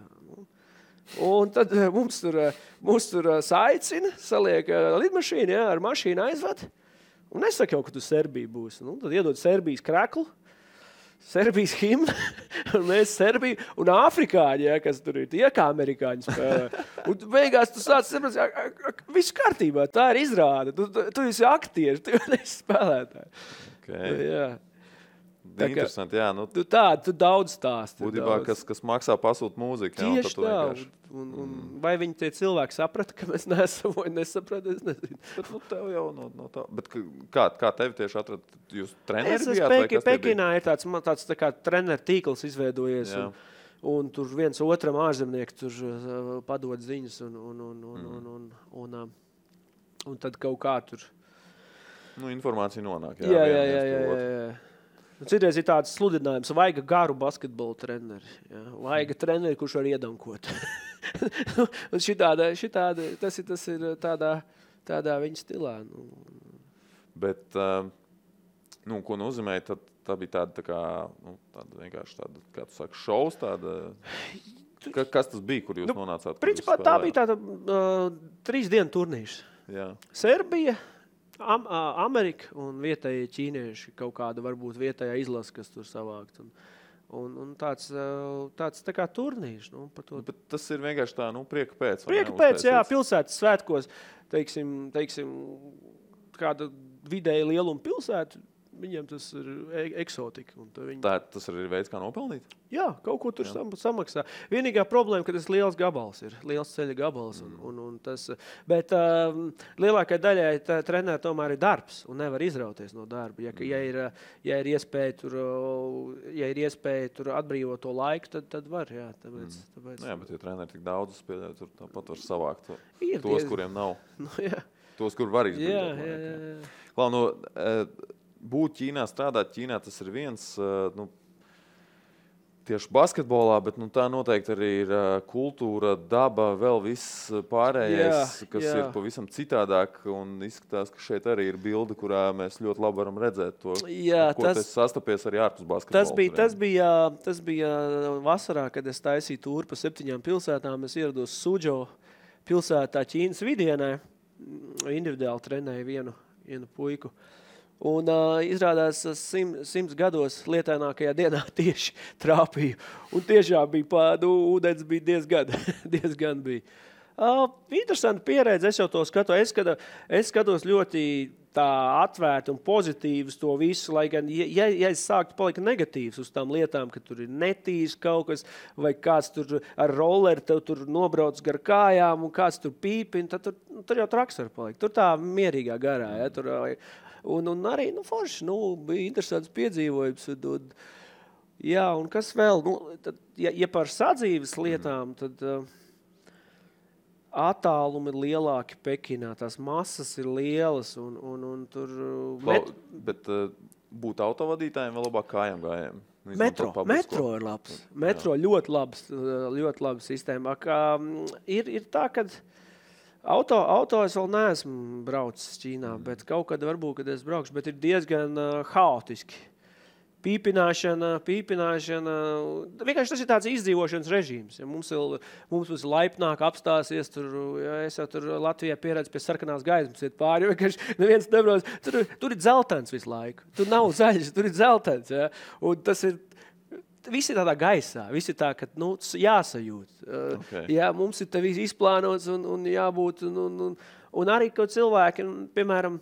Un tad mums tur saicina, saliek lidmašīnu, jā, ar mašīnu aizved, un nesaka jau, ka tu Serbija būs. Nu, tad iedod Serbijas kreklu, Serbijas himnu, un mēs Serbiju, un afrikāņi, ja, kas tur ir, tie kā amerikāņi spēlē. Un beigās tu sāc saprast, viss kārtībā, tā ir izrāde. Tu esi aktieris, tu neesi spēlētāji. Okay. Jā. Interesanti, jā. Nu, tu daudz stāsti. Būtībā, kas maksā pasūt mūziku. Tieši tā. Un vai viņi tie cilvēki saprata, ka mēs neesam vai nesaprata, es nezinu. Bet tev jau no tā. Bet kā tevi tieši atrad? Jūs treneri bijāt? Pekinā ir tāds tā kā treneru tīkls izveidojies. Un tur viens otram ārzemnieki tur padod ziņas un tad kaut kā tur. Nu, informācija nonāk. Jā. Citreiz ir tāds sludinājums, vajag garu basketbolu treneri. Jā. Vajag treneri, kurš var iedankot. Un šitāda, tas ir tādā viņa stilā. Nu. Bet, ko nozīmē, tā bija tāda vienkārši tāda, kā tu saki, šovs tāda... Kas tas bija, kur jūs nonācāt? Principā tā bija tāda 3 dienu turnīrs. Jā. Serbija, Amerika un vietējie ķīnieši, kaut kāda varbūt vietējā izlase, kas tur savākt. Un tāds tā kā turnīrs. Nu, bet tas ir vienkārši tā, prieka pēc. Prieka pēc, jā, pilsētas svētkos, teiksim, kāda vidēja lieluma pilsēta, viņiem tas ir eksotika. Tas arī ir veids, kā nopelnīt? Jā, kaut ko tur samaksā. Vienīgā problēma, ka tas liels gabals ir, liels ceļa gabals. Bet lielākai daļai treneri tomēr ir darbs un nevar izrauties no darba. Ja ir iespēja tur atbrīvot to laiku, tad var. Jā, tāpēc. Jā, bet ja treneri tik daudz spēlē, tur tāpat var savākt tos, kuriem nav. Nu, jā. Tos, kur var izbrīvot laiku. Jā. Būt Ķīnā, strādāt Ķīnā, tas ir viens, tieši basketbolā, bet tā noteikti arī ir kultūra, daba, vēl viss pārējais, kas ir pavisam citādāk, un izskatās, ka šeit arī ir bilde, kurā mēs ļoti labi varam redzēt to, tas sastapies arī ārpus basketbola. Tas bija vasarā, kad es taisīju tūru pa 7 pilsētām, es ierados Suzhou pilsētā Ķīnas vidienē, individuāli trenēju vienu puiku. Un izrādās 100 gados lietainākajā dienā tieši trāpīju. Un tiešām bija ūdens bija diezgan bija. Interesanti pieredze, es jau to skatu. Es skatos ļoti tā atvērti un pozitīvs to visu, lai gan, ja es sāktu palikt negatīvs uz tām lietām, ka tur ir netīrs kaut kas, vai kāds tur ar rolleri tev tur nobrauc gar kājām un kāds tur pīpina, tad tur jau traks var palikt. Tur tā mierīgā garā, ja, tur... Un arī, forši, bija interesants piedzīvojums. Jā, un kas vēl? Tad, ja par sadzīves lietām, tad attālumi ir lielāki Pekinā. Tās masas ir lielas un tur... Bet būt autovadītājiem vēl labāk kājām gājiem? Metro ir labs. Metro ļoti labs sistēma. Ir tā, kad... Auto es vēl neesmu braucis Ķīnā, bet kaut kad varbūt, kad es braukšu, bet ir diezgan haotiski. Pīpināšana. Vienkārši tas ir tāds izdzīvošanas režīms. Ja mums ir laipnāk apstāsies, es jau tur Latvijā pieredzu pie sarkanās gaismas iet pāri, vienkārši neviens nebrauc. Tur ir dzeltens visu laiku. Tur nav zaļš, tur ir dzeltens. Ja? Un tas ir... Visi tādā gaisā, visi tā, ka jāsajūt. Okay. Jā, mums ir te viss izplānots un jābūt. Un arī, ka cilvēki, piemēram,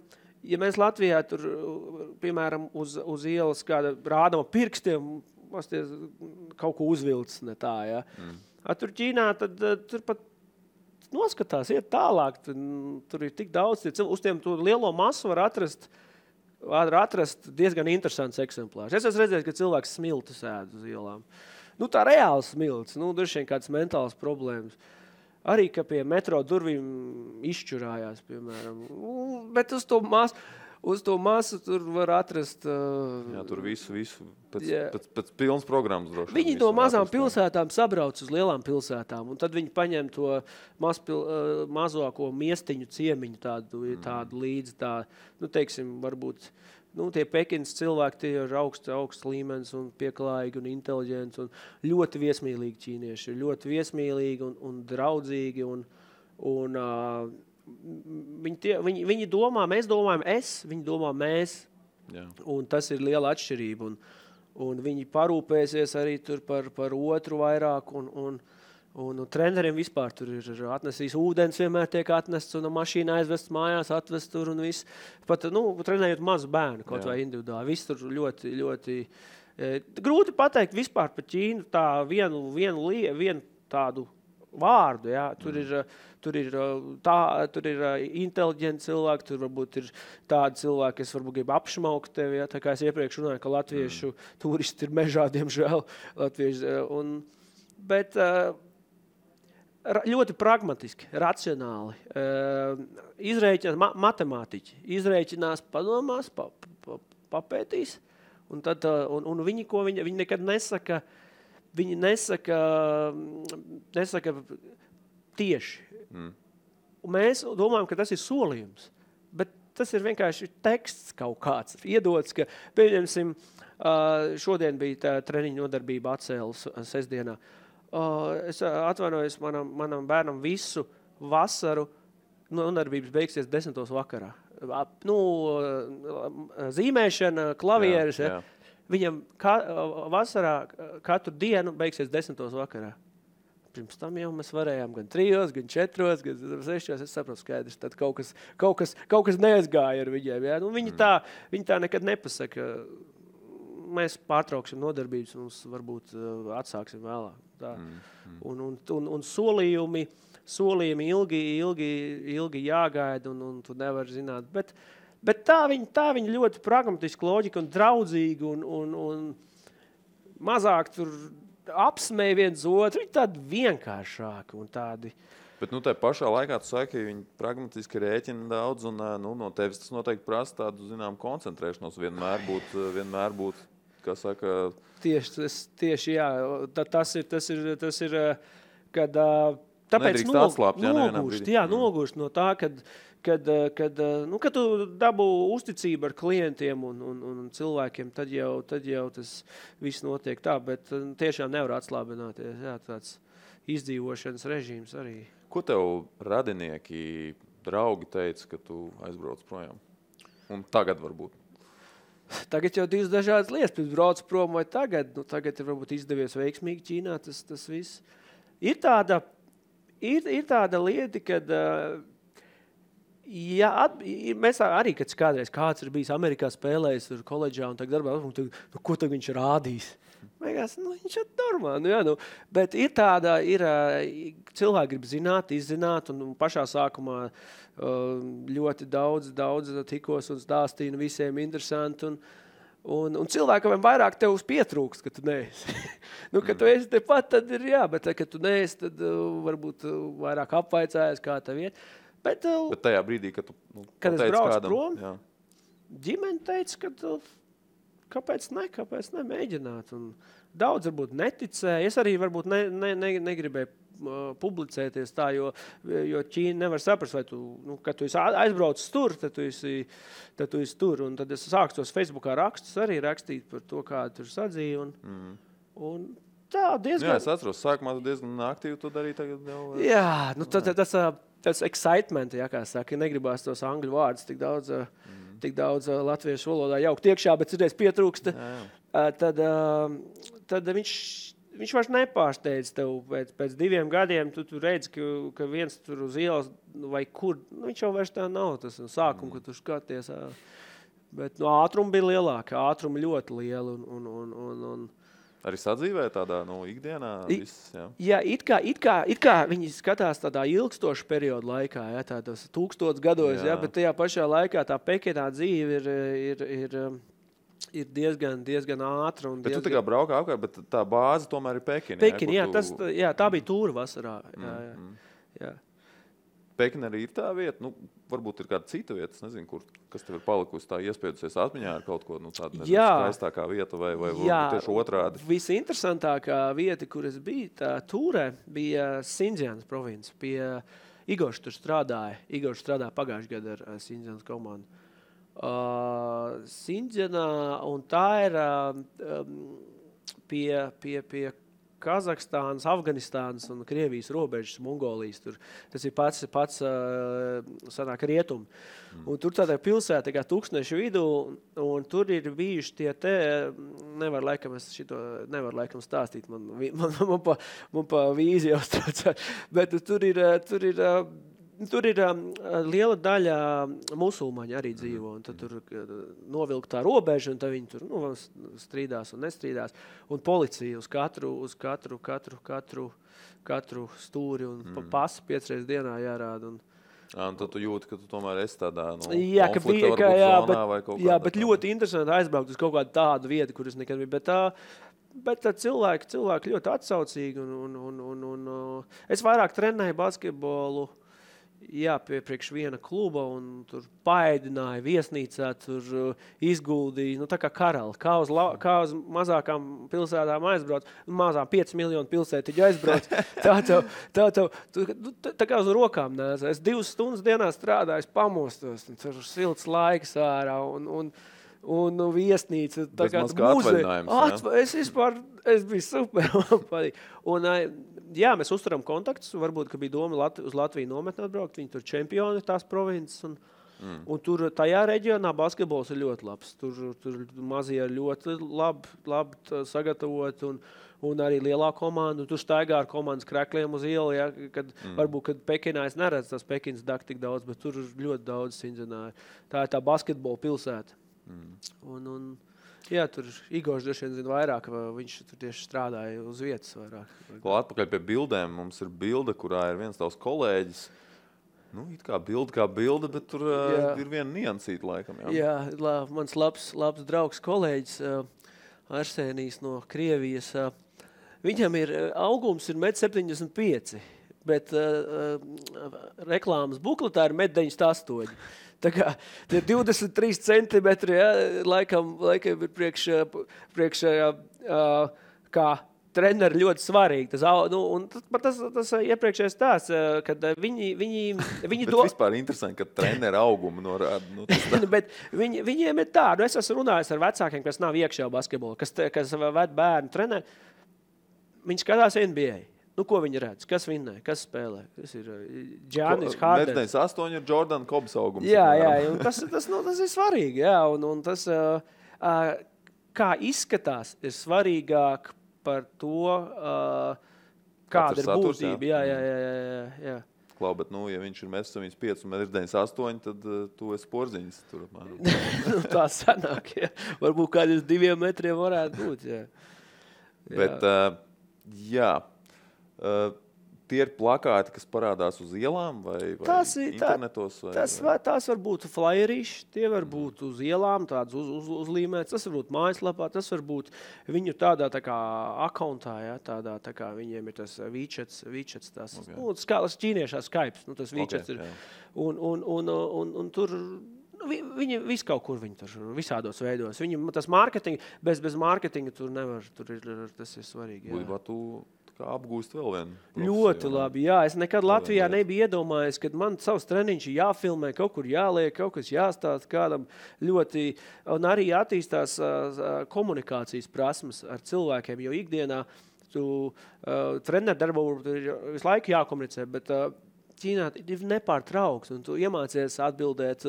ja mēs Latvijā tur, piemēram, uz ielas kāda rādama pirkstiem, kaut ko uzvilcis, ne tā, ja. Tur Ķīnā, tad tur pat noskatās, iet tālāk. Tur ir tik daudz, uz tiem to lielo masu var atrast var atrast diezgan interesants eksemplārs. Es esmu redzējis, ka cilvēks smiltis ēd uz ielām. Nu, tā reāli smiltis, droši vien kāds mentāls problēmas. Arī, ka pie metro durvīm izšķurājās, piemēram. Bet uz to masu tur var atrast... Jā, tur visu pēc pilnas programmas droši. Viņi no mazām pilsētām sabrauc uz lielām pilsētām, un tad viņi paņem to mazāko miestiņu ciemiņu tādu līdzi, teiksim, varbūt... tie Pekinas cilvēki, tie ir augsts līmenis un pieklājīgi un inteliģenti un ļoti viesmīlīgi ķīnieši. Ļoti viesmīlīgi un draudzīgi. Viņi domā, mēs domājam viņi domā mēs. Jā. Un tas ir liela atšķirība. Un viņi parūpēsies arī tur par otru vairāk. Un treneriem vispār tur ir atnesīs ūdens, vienmēr tiek atnests un mašīna aizvests mājās, atvest tur un viss. Pat, trenējot mazu bērnu, kaut vai individuāli. Viss tur ļoti, ļoti... grūti pateikt vispār par Ķīnu tā vienu tādu vārdu, jā. Tur ir inteliģenti cilvēki, tur varbūt ir tādi cilvēki, kas varbūt grib apšmaukt tevi, jā. Tā kā es iepriekš runāju, ka latviešu turisti ir mežā, diemžēl. Bet... ļoti pragmatiski, racionāli. Izrēķinās matemātiķi. Izrēķinās, padomās, papētīs. Un viņi nekad nesaka, nesaka tieši. Un mēs domājam, ka tas ir solījums. Bet tas ir vienkārši teksts kaut kāds. Iedots, ka, pieņemsim, šodien bija tā treniņa nodarbība atcēlas sestdienā. Es atvainojos manam bērnam visu vasaru, nodarbības beigsies 10. vakarā. Zīmēšana, klavieres, jā. Viņam vasarā katru dienu beigsies 10. vakarā. Pirms tam jau mēs varējām gan 3, gan 4, gan 6, es saprotu skaidrs, tad kaut kas neaizgāja ar viņiem. Jā. Viņi tā nekad nepasaka. Mēs pārtrauksim nodarbības, mums varbūt atsāksim vēlāk. Un solījumi ilgi jāgaida, un tu nevar zināt. Bet tā viņa ļoti pragmatiski loģika un draudzīgi, un mazāk tur apsmēja viens otru, viņi tādi vienkāršāki un tādi. Bet tā pašā laikā tu saki, ka viņi pragmatiski rēķina daudz, un no tevis tas noteikti prasa tādu, koncentrēšanos vienmēr būt, kā saka... Tieši, jā. Tas ir, kad tāpēc nogurst no tā, kad tu dabū uzticību ar klientiem un cilvēkiem, tad jau tas viss notiek tā, bet tiešām nevar atslābināties. Jā, tāds izdzīvošanas režīms arī. Ko tev radinieki, draugi teica, ka tu aizbrauc projām? Un tagad varbūt? Tagad jau divas dažādas lietas, pirms brauc prom vai tagad. Tagad ir varbūt izdevies veiksmīgi Ķīnā, tas viss. Ir tāda lieta, kad mēs arī, kad kādreiz kāds ir bijis Amerikā spēlējis tur koledžā un tagad darbā, ko tagad viņš rādīs? Mēgās, viņš ir normāli. Bet ir cilvēki grib zināt, izzināt, un pašā sākumā ļoti daudz tikos un stāstīju, visiem interesanti. Un cilvēkam vairāk tev pietrūkst, ka tu neesi. Kad tu esi tepat, tad ir jā, bet kad tu neesi, tad varbūt vairāk apvaicājies, kā tev iet. Bet tajā brīdī, kad tu kad es braucu kādam, prom, jā. Ģimene teica, ka kāpēc nemēģināt. Un daudz varbūt neticēja. Es arī varbūt negribēju publicēties tā, jo Ķīna nevar saprast, vai tu, kad tu esi aizbraucis tur, tad tu esi tur. Un tad es sāku tos Facebookā rakstus arī rakstīt par to, kā tur sadzīja. Un tā diezgan... Jā, es atceros, sākumā tu diezgan aktīvi to darīji tagad jau... Jā, tas excitement, jā, kā saka, negribās tos angļu vārdus tik daudz latviešu valodā jaukt iekšā, bet citreiz pietrūksta. Tad viņš vairs nepārsteidz tev pēc 2 gadiem, tu redzi, ka viens tur uz ielas vai kur, viņš jau vairs tā nav tas sākums, kad tu skaties. Bet ātrumi bija lielāki, ātrumi ļoti lieli un Arī sadzīvē tādā, ikdienā viss, jā? Jā, it kā viņi skatās tādā ilgstošu periodu laikā, jā, tādos 1000 gados, jā, bet tajā pašā laikā tā Pekinā dzīve ir diezgan ātra. Bet tu tā kā braukā apkārt, bet tā bāze tomēr ir Pekina. Pekina, tā bija tūra vasarā. Jā. Pekina arī ir tā vieta, varbūt ir kāda cita vieta, es nezinu, kas tev ir palikusi tā iespējusies atmiņā ar kaut ko, tādu skaistākā vieta vai tieši otrādi. Visinteresantākā vieta, kur es biju, tā tūrē, bija Sindzianas province. Pie Igors tur strādāja. Igors strādāja pagājušajā gadā ar Sindzianas komandu. Sindzianā, un tā ir pie Kazahstānas, Afganistānas un Krievijas robežas, Mongolijas. Tas ir pats sanāk rietumi. Un tur tādā pilsētā, kā tūkstnešu vidū, un tur ir bijuši nevar laikam stāstīt, man pa vīzi jau strācā, bet tur ir liela daļa musulmaņi arī dzīvo, un tad tur novilk tā robeža, un tad viņi tur strīdās un nestrīdās. Un policija uz katru stūri un pasi 5 reizes dienā jārāda. Un tad tu jūti, ka tu tomēr esi tādā konflikta varbūt zonā vai kaut kādā. Jā, bet ļoti interesanti aizbraukt uz kaut kādu tādu vietu, kur es nekad biju. Bet cilvēki ļoti atsaucīgi. Un es vairāk trenēju basketbolu. Jā, priekš viena kluba, un tur paēdināja viesnīcā, tur izguldīja, tā kā karali, kā uz mazākām pilsētām aizbrauc, mazām 5 miljonu pilsētiņu aizbrauc, tā kā uz rokām nēs. Es 2 stundas dienā strādāju, pamostos, un tur silts laiks ārā, un viesnīca, tā kā muzeja. Es biju super. Un, jā, mēs uzturam kontaktus. Varbūt, ka bija doma uz Latviju nometni atbraukt. Viņi tur čempioni tās provinces. Un tur tajā reģionā basketbols ir ļoti labs. Tur mazie ir ļoti labi sagatavot. Un arī lielā komanda. Tur staigā ar komandas krekļiem uz ielu. Ja, varbūt, kad Pekinā es neredzu tās Pekinas dak tik daudz, bet tur ir ļoti daudz Sindzianā. Tā ir tā basketbola pilsēta. Jā, tur Igors droši vien zina vairāk, viņš tur tieši strādāja uz vietas vairāk. Atpakaļ pie bildēm. Mums ir bilde, kurā ir viens tavs kolēģis. It kā bilde, bet tur ir viena niansīta laikam. Jā, mans labs draugs kolēģis Arsenijs no Krievijas. Viņam augums ir 1,75 m, bet reklāmas bukletā ir 1,98 m. Tā kā tie 23 centimetri, ja, laikam ir priekš kā treneri ļoti svarīgi. Tas iepriekšējais tās, kad viņi bet vispār interesanti, ka treneri augumu norāda. Bet viņiem ir tā, es esmu runājis ar vecākiem, kas nav iekšā basketbola, kas ved bērnu treneri. Viņi skatās NBA. Ko viņi redz? Kas vinnē? Kas spēlē? Tas ir Giannis Hardens. 1,98 ir Jordan Kobs augums. Jā, un tas ir svarīgi. Jā, un tas, kā izskatās, ir svarīgāk par to, kāda ir būtība. Jā. Klau, bet, ja viņš ir 1,75 un 1,98, tad tu esi porziņas tur apmēram. Tā sanāk, jā. Varbūt kādus 2 metriem varētu būt, jā. Bet, jā. Tie ir plakāti, kas parādās uz ielām vai internetos? Tās var būt flyerīši, tie var būt uz ielām, tāds uzlīmēts, tas var būt mājaslapā, tas var būt viņu tādā tā kā akauntā, ja, tādā tā kā viņiem ir tas WeChats tas, ķīniešā Skype, tas WeChats ir. Un tur viņi visu kaut kur viņi tur visādos veidos. Viņi tas mārketingi, bez mārketinga tur nevar, tas ir svarīgi. Būtībā tu kā apgūst vēl vienu. Ļoti labi, jā. Es nekad Latvijā nebiju iedomājies, kad man savs treniņš jāfilmē, kaut kur jāliek, kaut kas jāstāst kādam ļoti, un arī attīstās komunikācijas prasmes ar cilvēkiem, jo ikdienā tu treneru darbu ir visu laiku jākomunicē, bet Ķīnā ir nepārtraukts, un tu iemācies atbildēt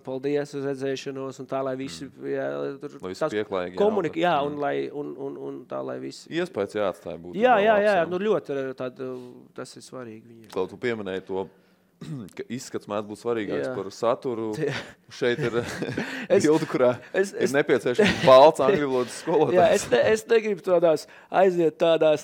paldies uz redzēšanos, un tā, lai visi pieklājīgi un tā, lai visi... Iespējas jāatstāja būt. Jā, ļoti tas ir svarīgi viņiem. Kaut tu pieminēji to ka izskats mēdz būt svarīgāks par saturu. Šeit ir bilde, kurā ir nepieciešams balts angļu valodas skolotājs. Es negribu aiziet tādās,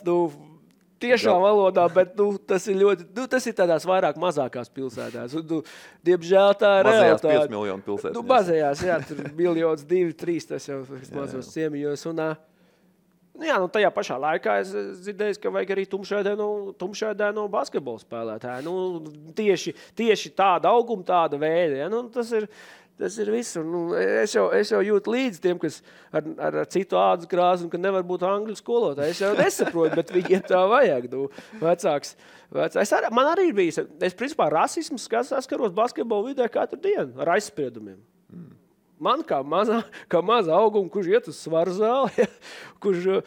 tiešā valodā, bet tas ir ļoti, tas ir tādās vairāk mazākās pilsētās. Un, diemžēl tā ir realitāte. Mazajās 5 miljonu pilsētas. Mazajās, jā, tur 1, 2, 3, tas jau mazos ciemiņos. Un, tajā pašā laikā es dzirdēju, ka vajag arī tumšēdēno basketbolu spēlētāju. Tieši tāda auguma, tāda veida. Ja? Tas ir viss. Es jau jūtu līdzi tiem, kas ar citu ādas krāsu un ka nevar būt angļu skolotāji. Es jau nesaprotu, bet viņiem tā vajag. Vecāks. Man arī ir bijis. Es principā rasismu saskaros basketbolu vidē katru dienu ar aizspriedumiem. Man kā maza auguma, kurš iet uz svaru zāli, ja, kurš,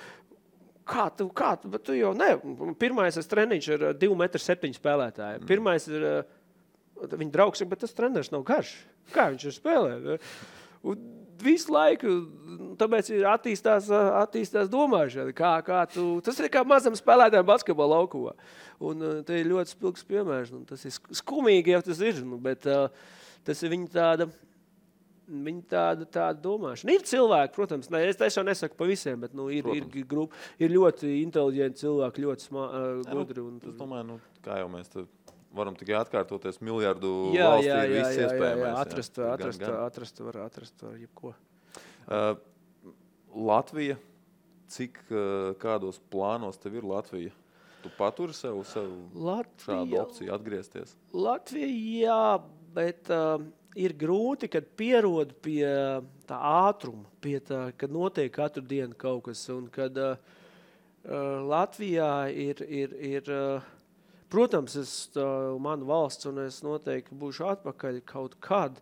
kā tu, bet tu jau ne. Pirmais es treniņš ar 2,7 m spēlētāju. Pirmais ir, viņa draugs, bet tas treneris nav garš. Kā viņš ir spēlē? Un visu laiku, tāpēc ir attīstās domāšana. Tas ir kā mazam spēlētājiem basketbola laukumā. Un te ir ļoti spilgs piemērs. Tas ir skumīgi, ja tas ir, bet tas ir viņa tāda domāšana. Ir cilvēki, protams, es jau nesaku pa visiem, bet ir ļoti inteliģenti cilvēki, ļoti gudri. Es domāju, kā jau mēs te varam tikai atkārtoties miljardu valstī ir viss iespējamais. Atrast var jebko. Latvija, kādos plānos tev ir Latvija? Tu paturi sev šādu opciju atgriezties? Latvija, jā, bet ir grūti, kad pierod pie tā ātruma, kad notiek katru dienu kaut kas. Un kad Latvijā ir protams, mana valsts, un es noteikti būšu atpakaļ kaut kad,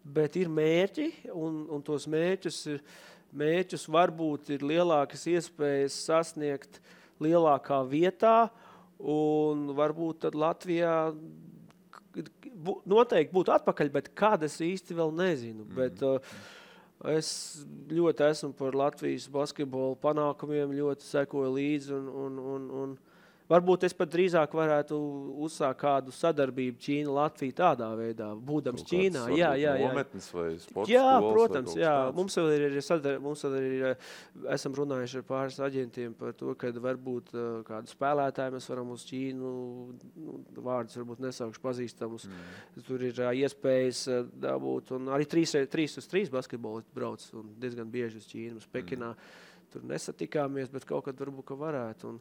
bet ir mērķi, un tos mērķus varbūt ir lielākas iespējas sasniegt lielākā vietā, un varbūt tad Latvijā noteikti būtu atpakaļ, bet kad es īsti vēl nezinu. Bet es ļoti esmu par Latvijas basketbolu panākumiem, ļoti sekoju līdzi un varbūt es pat drīzāk varētu uzsākt kādu sadarbību Ķīna-Latvija tādā veidā, būdams Ķīnā. Jā. Nometnes vai sporta jā, skolas? Protams, jā. Mums vēl ir, esam runājuši ar pāris aģentiem par to, ka varbūt kādu spēlētāju mēs varam uz Ķīnu, vārdus varbūt nesaukšu pazīstamus. Tur ir iespējas dabūt, un arī 3x3 basketbolisti brauc, un diezgan bieži uz Ķīnu, uz Pekinā. Tur nesatikāmies, bet kaut kad varbūt, ka varētu.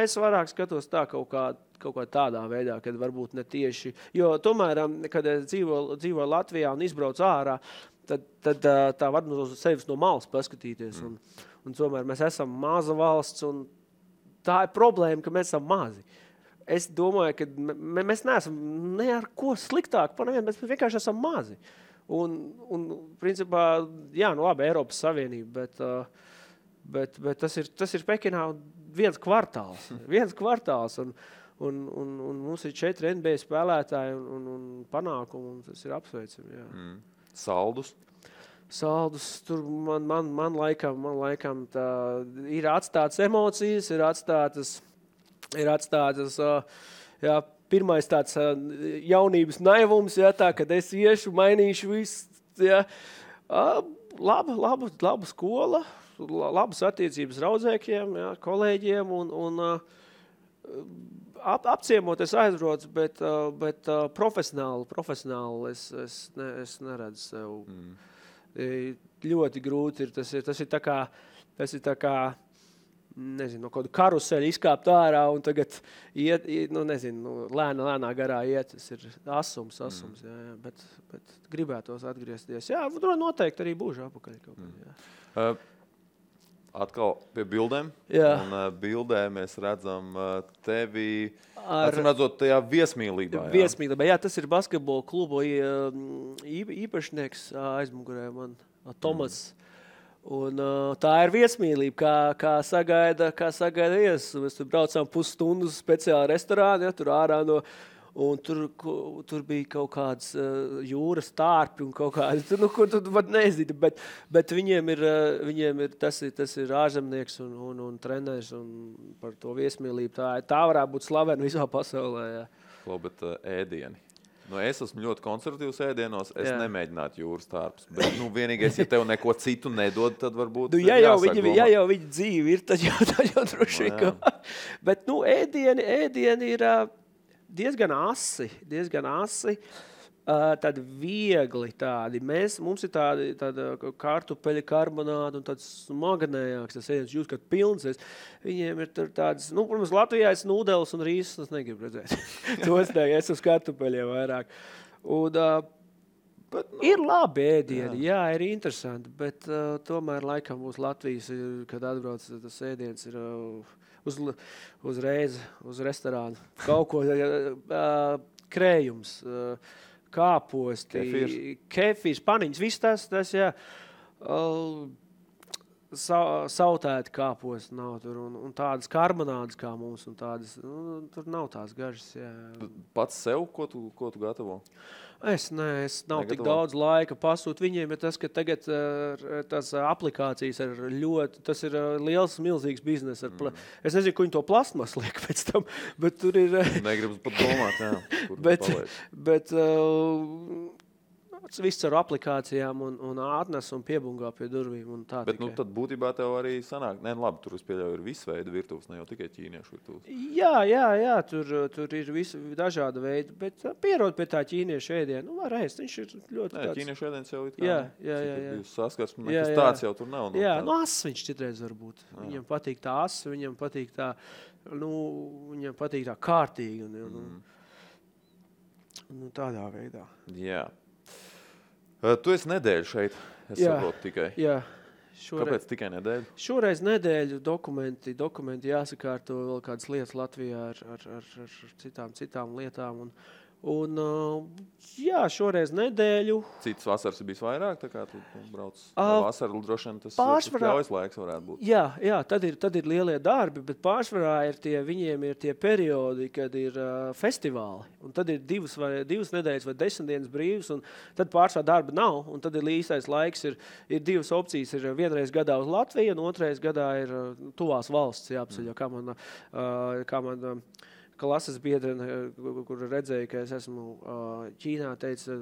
Es vairāk skatos tā kaut kā tādā veidā, kad varbūt ne tieši. Jo tomēr, kad es dzīvoju Latvijā un izbraucu ārā, tad tā var no sevis no malas paskatīties. Un tomēr mēs esam maza valsts, un tā ir problēma, ka mēs esam mazi. Es domāju, ka mēs neesam ne ar ko sliktāk par nevienu, mēs vienkārši esam mazi. Un principā, labi, Eiropas Savienība, bet tas ir Pekinā viens kvartāls. Un mums ir 4 NBA spēlētāji un panākumi, un tas ir apsveicami. Jā. Saldus, tur man laikam tā ir atstātas emocijas, ir atstātas pirmais tāds jaunības naivums, tā, kad es iešu, mainīšu visu. Laba skola, labas attiecības raudzēkiem, kolēģiem un apciemot es aizbraucu, bet profesionāli es neredzu sev. Ļoti grūti ir. Tas ir tā kā nezinu, no kādu karuseļu izkāpt ārā un tagad iet lēnā garā iet. Tas ir asums, jā, bet gribētos atgriezties. Jā, noteikti arī būšu apakaļ kaut kad, Atkal pie bildēm. Jā. Un bildē mēs redzam tevi, redzot tajā viesmīlībā. Viesmīlībā, tas ir basketbola klubu īpašnieks aizmugurē man, Tomas. Un tā ir viesmīlība, kā sagaida viesus. Mēs tur braucām pusstundu speciāli restorāni, tur ārā no. Un tur bija kaut kāds jūras tārpi un kaut kāds, ko tu pat nezini, bet viņiem ir tas ir ārzemnieks un treneris un par to viesmīlību. Tā varētu būt slavena visā pasaulē. Jā. Bet ēdieni. Nu, es esmu ļoti konservatīvs ēdienos, es nemēģinātu jūras tārpus. Bet, vienīgais, ja tev neko citu nedod, tad varbūt ja jau viņa dzīve ir, tad jau droši vien. Bet, ēdieni ir diezgan asi. Tādi viegli tādi. Mums ir tāda kartupeļa karbonāda un tāds smagnējāks, tas ēdiens jūs, kad pilns. Viņiem ir tādas, protams, Latvijā es nūdeles un rīsus, es negribu redzēt. Tos es uz kartupeļiem vairāk. Un, bet, ir labi ēdieni, jā, ir interesanti, bet tomēr laikam mūsu Latvijas, kad atbrauc tas ēdiens, ir uzreiz uz restorānu. Kaut ko krējums, kāposti, kefīrs, paniņas, viss tas, jā. Sautēti kāposti nav tur un tādas karbonādas kā mums un tādas, tur nav tās gažas, jā. Pats sev, ko tu gatavo? Es nav tik daudz laika pasūt viņiem, bet tas, ka tagad tās aplikācijas ir ļoti, tas ir liels, milzīgs biznes. Es nezinu, ko viņi to plastmas liek pēc tam, bet tur ir... Negribas pat domāt, jā. Bet viss ar aplikācijām un atnes un piebungā pie durvīm un tā bet, tikai. Tad būtībā tev arī sanāk, labi, tur es pieļauju ir visu veidu virtuves, ne jau tikai ķīniešu virtuves. Jā, tur ir visi dažāda veida, bet pierod pie tā ķīniešu ēdienu, var ēst, viņš ir ļoti tāds. Ķīniešu ēdiens jau ir kā, jā. Saskarsme, nekas tāds jau tur nav. Jā, ass viņš citreiz var būt. Viņam patīk tā ass, viņam patīk tā kārtīgi un tādā veidā. Jā. Tu esi nedēļu šeit, es saprotu tikai. Jā. Kāpēc tikai nedēļu? Šoreiz nedēļu dokumenti jāsakārto vēl kādas lietas Latvijā ar citām lietām. Un šoreiz nedēļu. Citas vasaras ir bijis vairāk, tā kā tu brauc vasaru, droši vien tas ļaujas laiks varētu būt. Jā, tad ir lielie darbi, bet pārsvarā viņiem ir tie periodi, kad ir festivāli. Un tad ir divas nedēļas vai 10 dienas brīvas, un tad pārsvarā darba nav. Un tad ir īstais laiks, ir divas opcijas. Ir vienreiz gadā uz Latviju, un otrais gadā ir tuvās valsts jāapceļo, kā man klases biedrene, kur redzēja, ka es esmu Ķīnā, teica,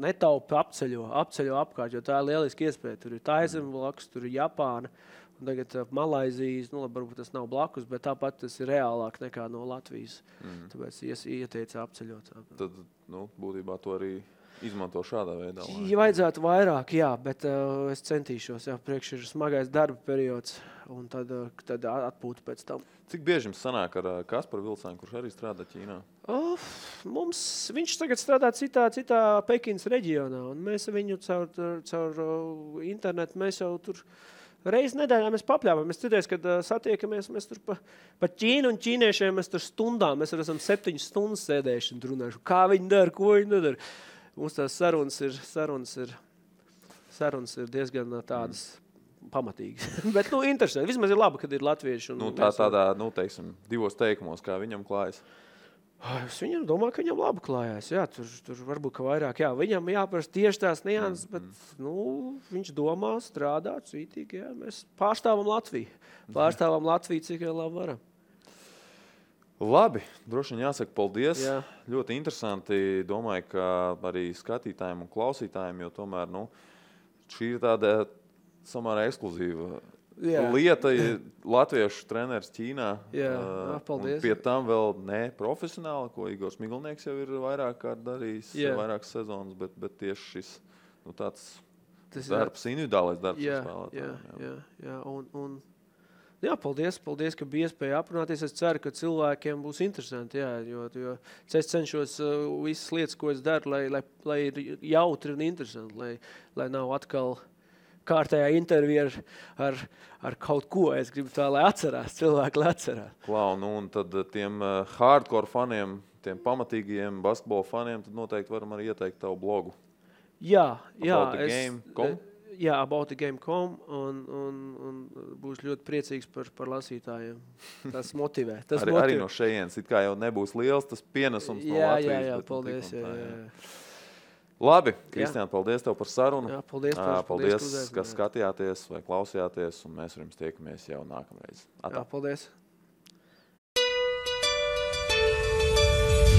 netaupi apceļo apkārt, jo tā ir lieliski iespēja. Tur ir Taizeme blakus, tur ir Japāna, un tagad Malaizijas, varbūt tas nav blakus, bet tāpat tas ir reālāk nekā no Latvijas. Tāpēc ieteica apceļot. Tad, būtībā to arī izmanto šādā veidā. Ja vajadzētu vairāk, jā, bet es centīšos, priekš ir smagais darba periods, un tad atpūta pēc tam. Cik bieži jums sanāk ar Kasparu Vilcānu, kurš arī strādā Ķīnā? Viņš tagad strādā citā Pekinas reģionā, un mēs viņu caur internetu, mēs jau tur reizi nedēļā mēs papļāvām. Mēs citreiz, kad satiekamies, mēs tur pa Ķīnu un ķīniešiem, mēs tur stundām, mēs esam 7 stundas sēdējuši un runājuši, kā viņi dara, ko viņi nedara. Mums tās sarunas ir diezgan tādas pamatīgas. Bet, interesanti. Vismaz ir labi, kad ir latvieši. Tādā, teiksim, 2 teikumos, kā viņam klājas. Es viņam domāju, ka viņam labi klājās. Jā, tur varbūt ka vairāk. Jā, viņam jāprast tieši tās nianses, bet viņš domā, strādā cītīgi. Jā. Mēs pārstāvam Latviju. Pārstāvam Latviju, cik jau labi varam. Labi, droši vien jāsaka paldies. Jā. Ļoti interesanti. Domāju, ka arī skatītājiem un klausītājiem, jo tomēr, šī ir tāda samērā ekskluzīva lieta. Latviešu treneris Ķīnā. Jā, paldies. Pie tam vēl ne profesionāli, ko Igors Miglnieks jau ir vairāk kārt darījis, vairākas sezonas, bet tieši šis tāds darbs, individuālais darbs. Jā, paldies, ka bija iespēja aprunāties. Es ceru, ka cilvēkiem būs interesanti, jo es cenšos visas lietas, ko es daru, lai ir jautri un interesanti, lai nav atkal kārtējā intervija ar kaut ko. Es gribu tā, lai atcerās, cilvēki lai atcerās. Klau, un tad tiem hardcore faniem, tiem pamatīgajiem basketbola faniem, tad noteikti varam arī ieteikt tavu blogu. Jā. Aboutthegame.com un būs ļoti priecīgs par lasītājiem. Tas motivē. Arī no šejienes, it kā jau nebūs liels tas pienesums no Latvijas. Jā, paldies. Labi, Kristiāna, paldies tev par sarunu. Jā, paldies, ka skatījāties vai klausījāties, un mēs ar jums tiekamies jau nākamreiz. Jā, paldies.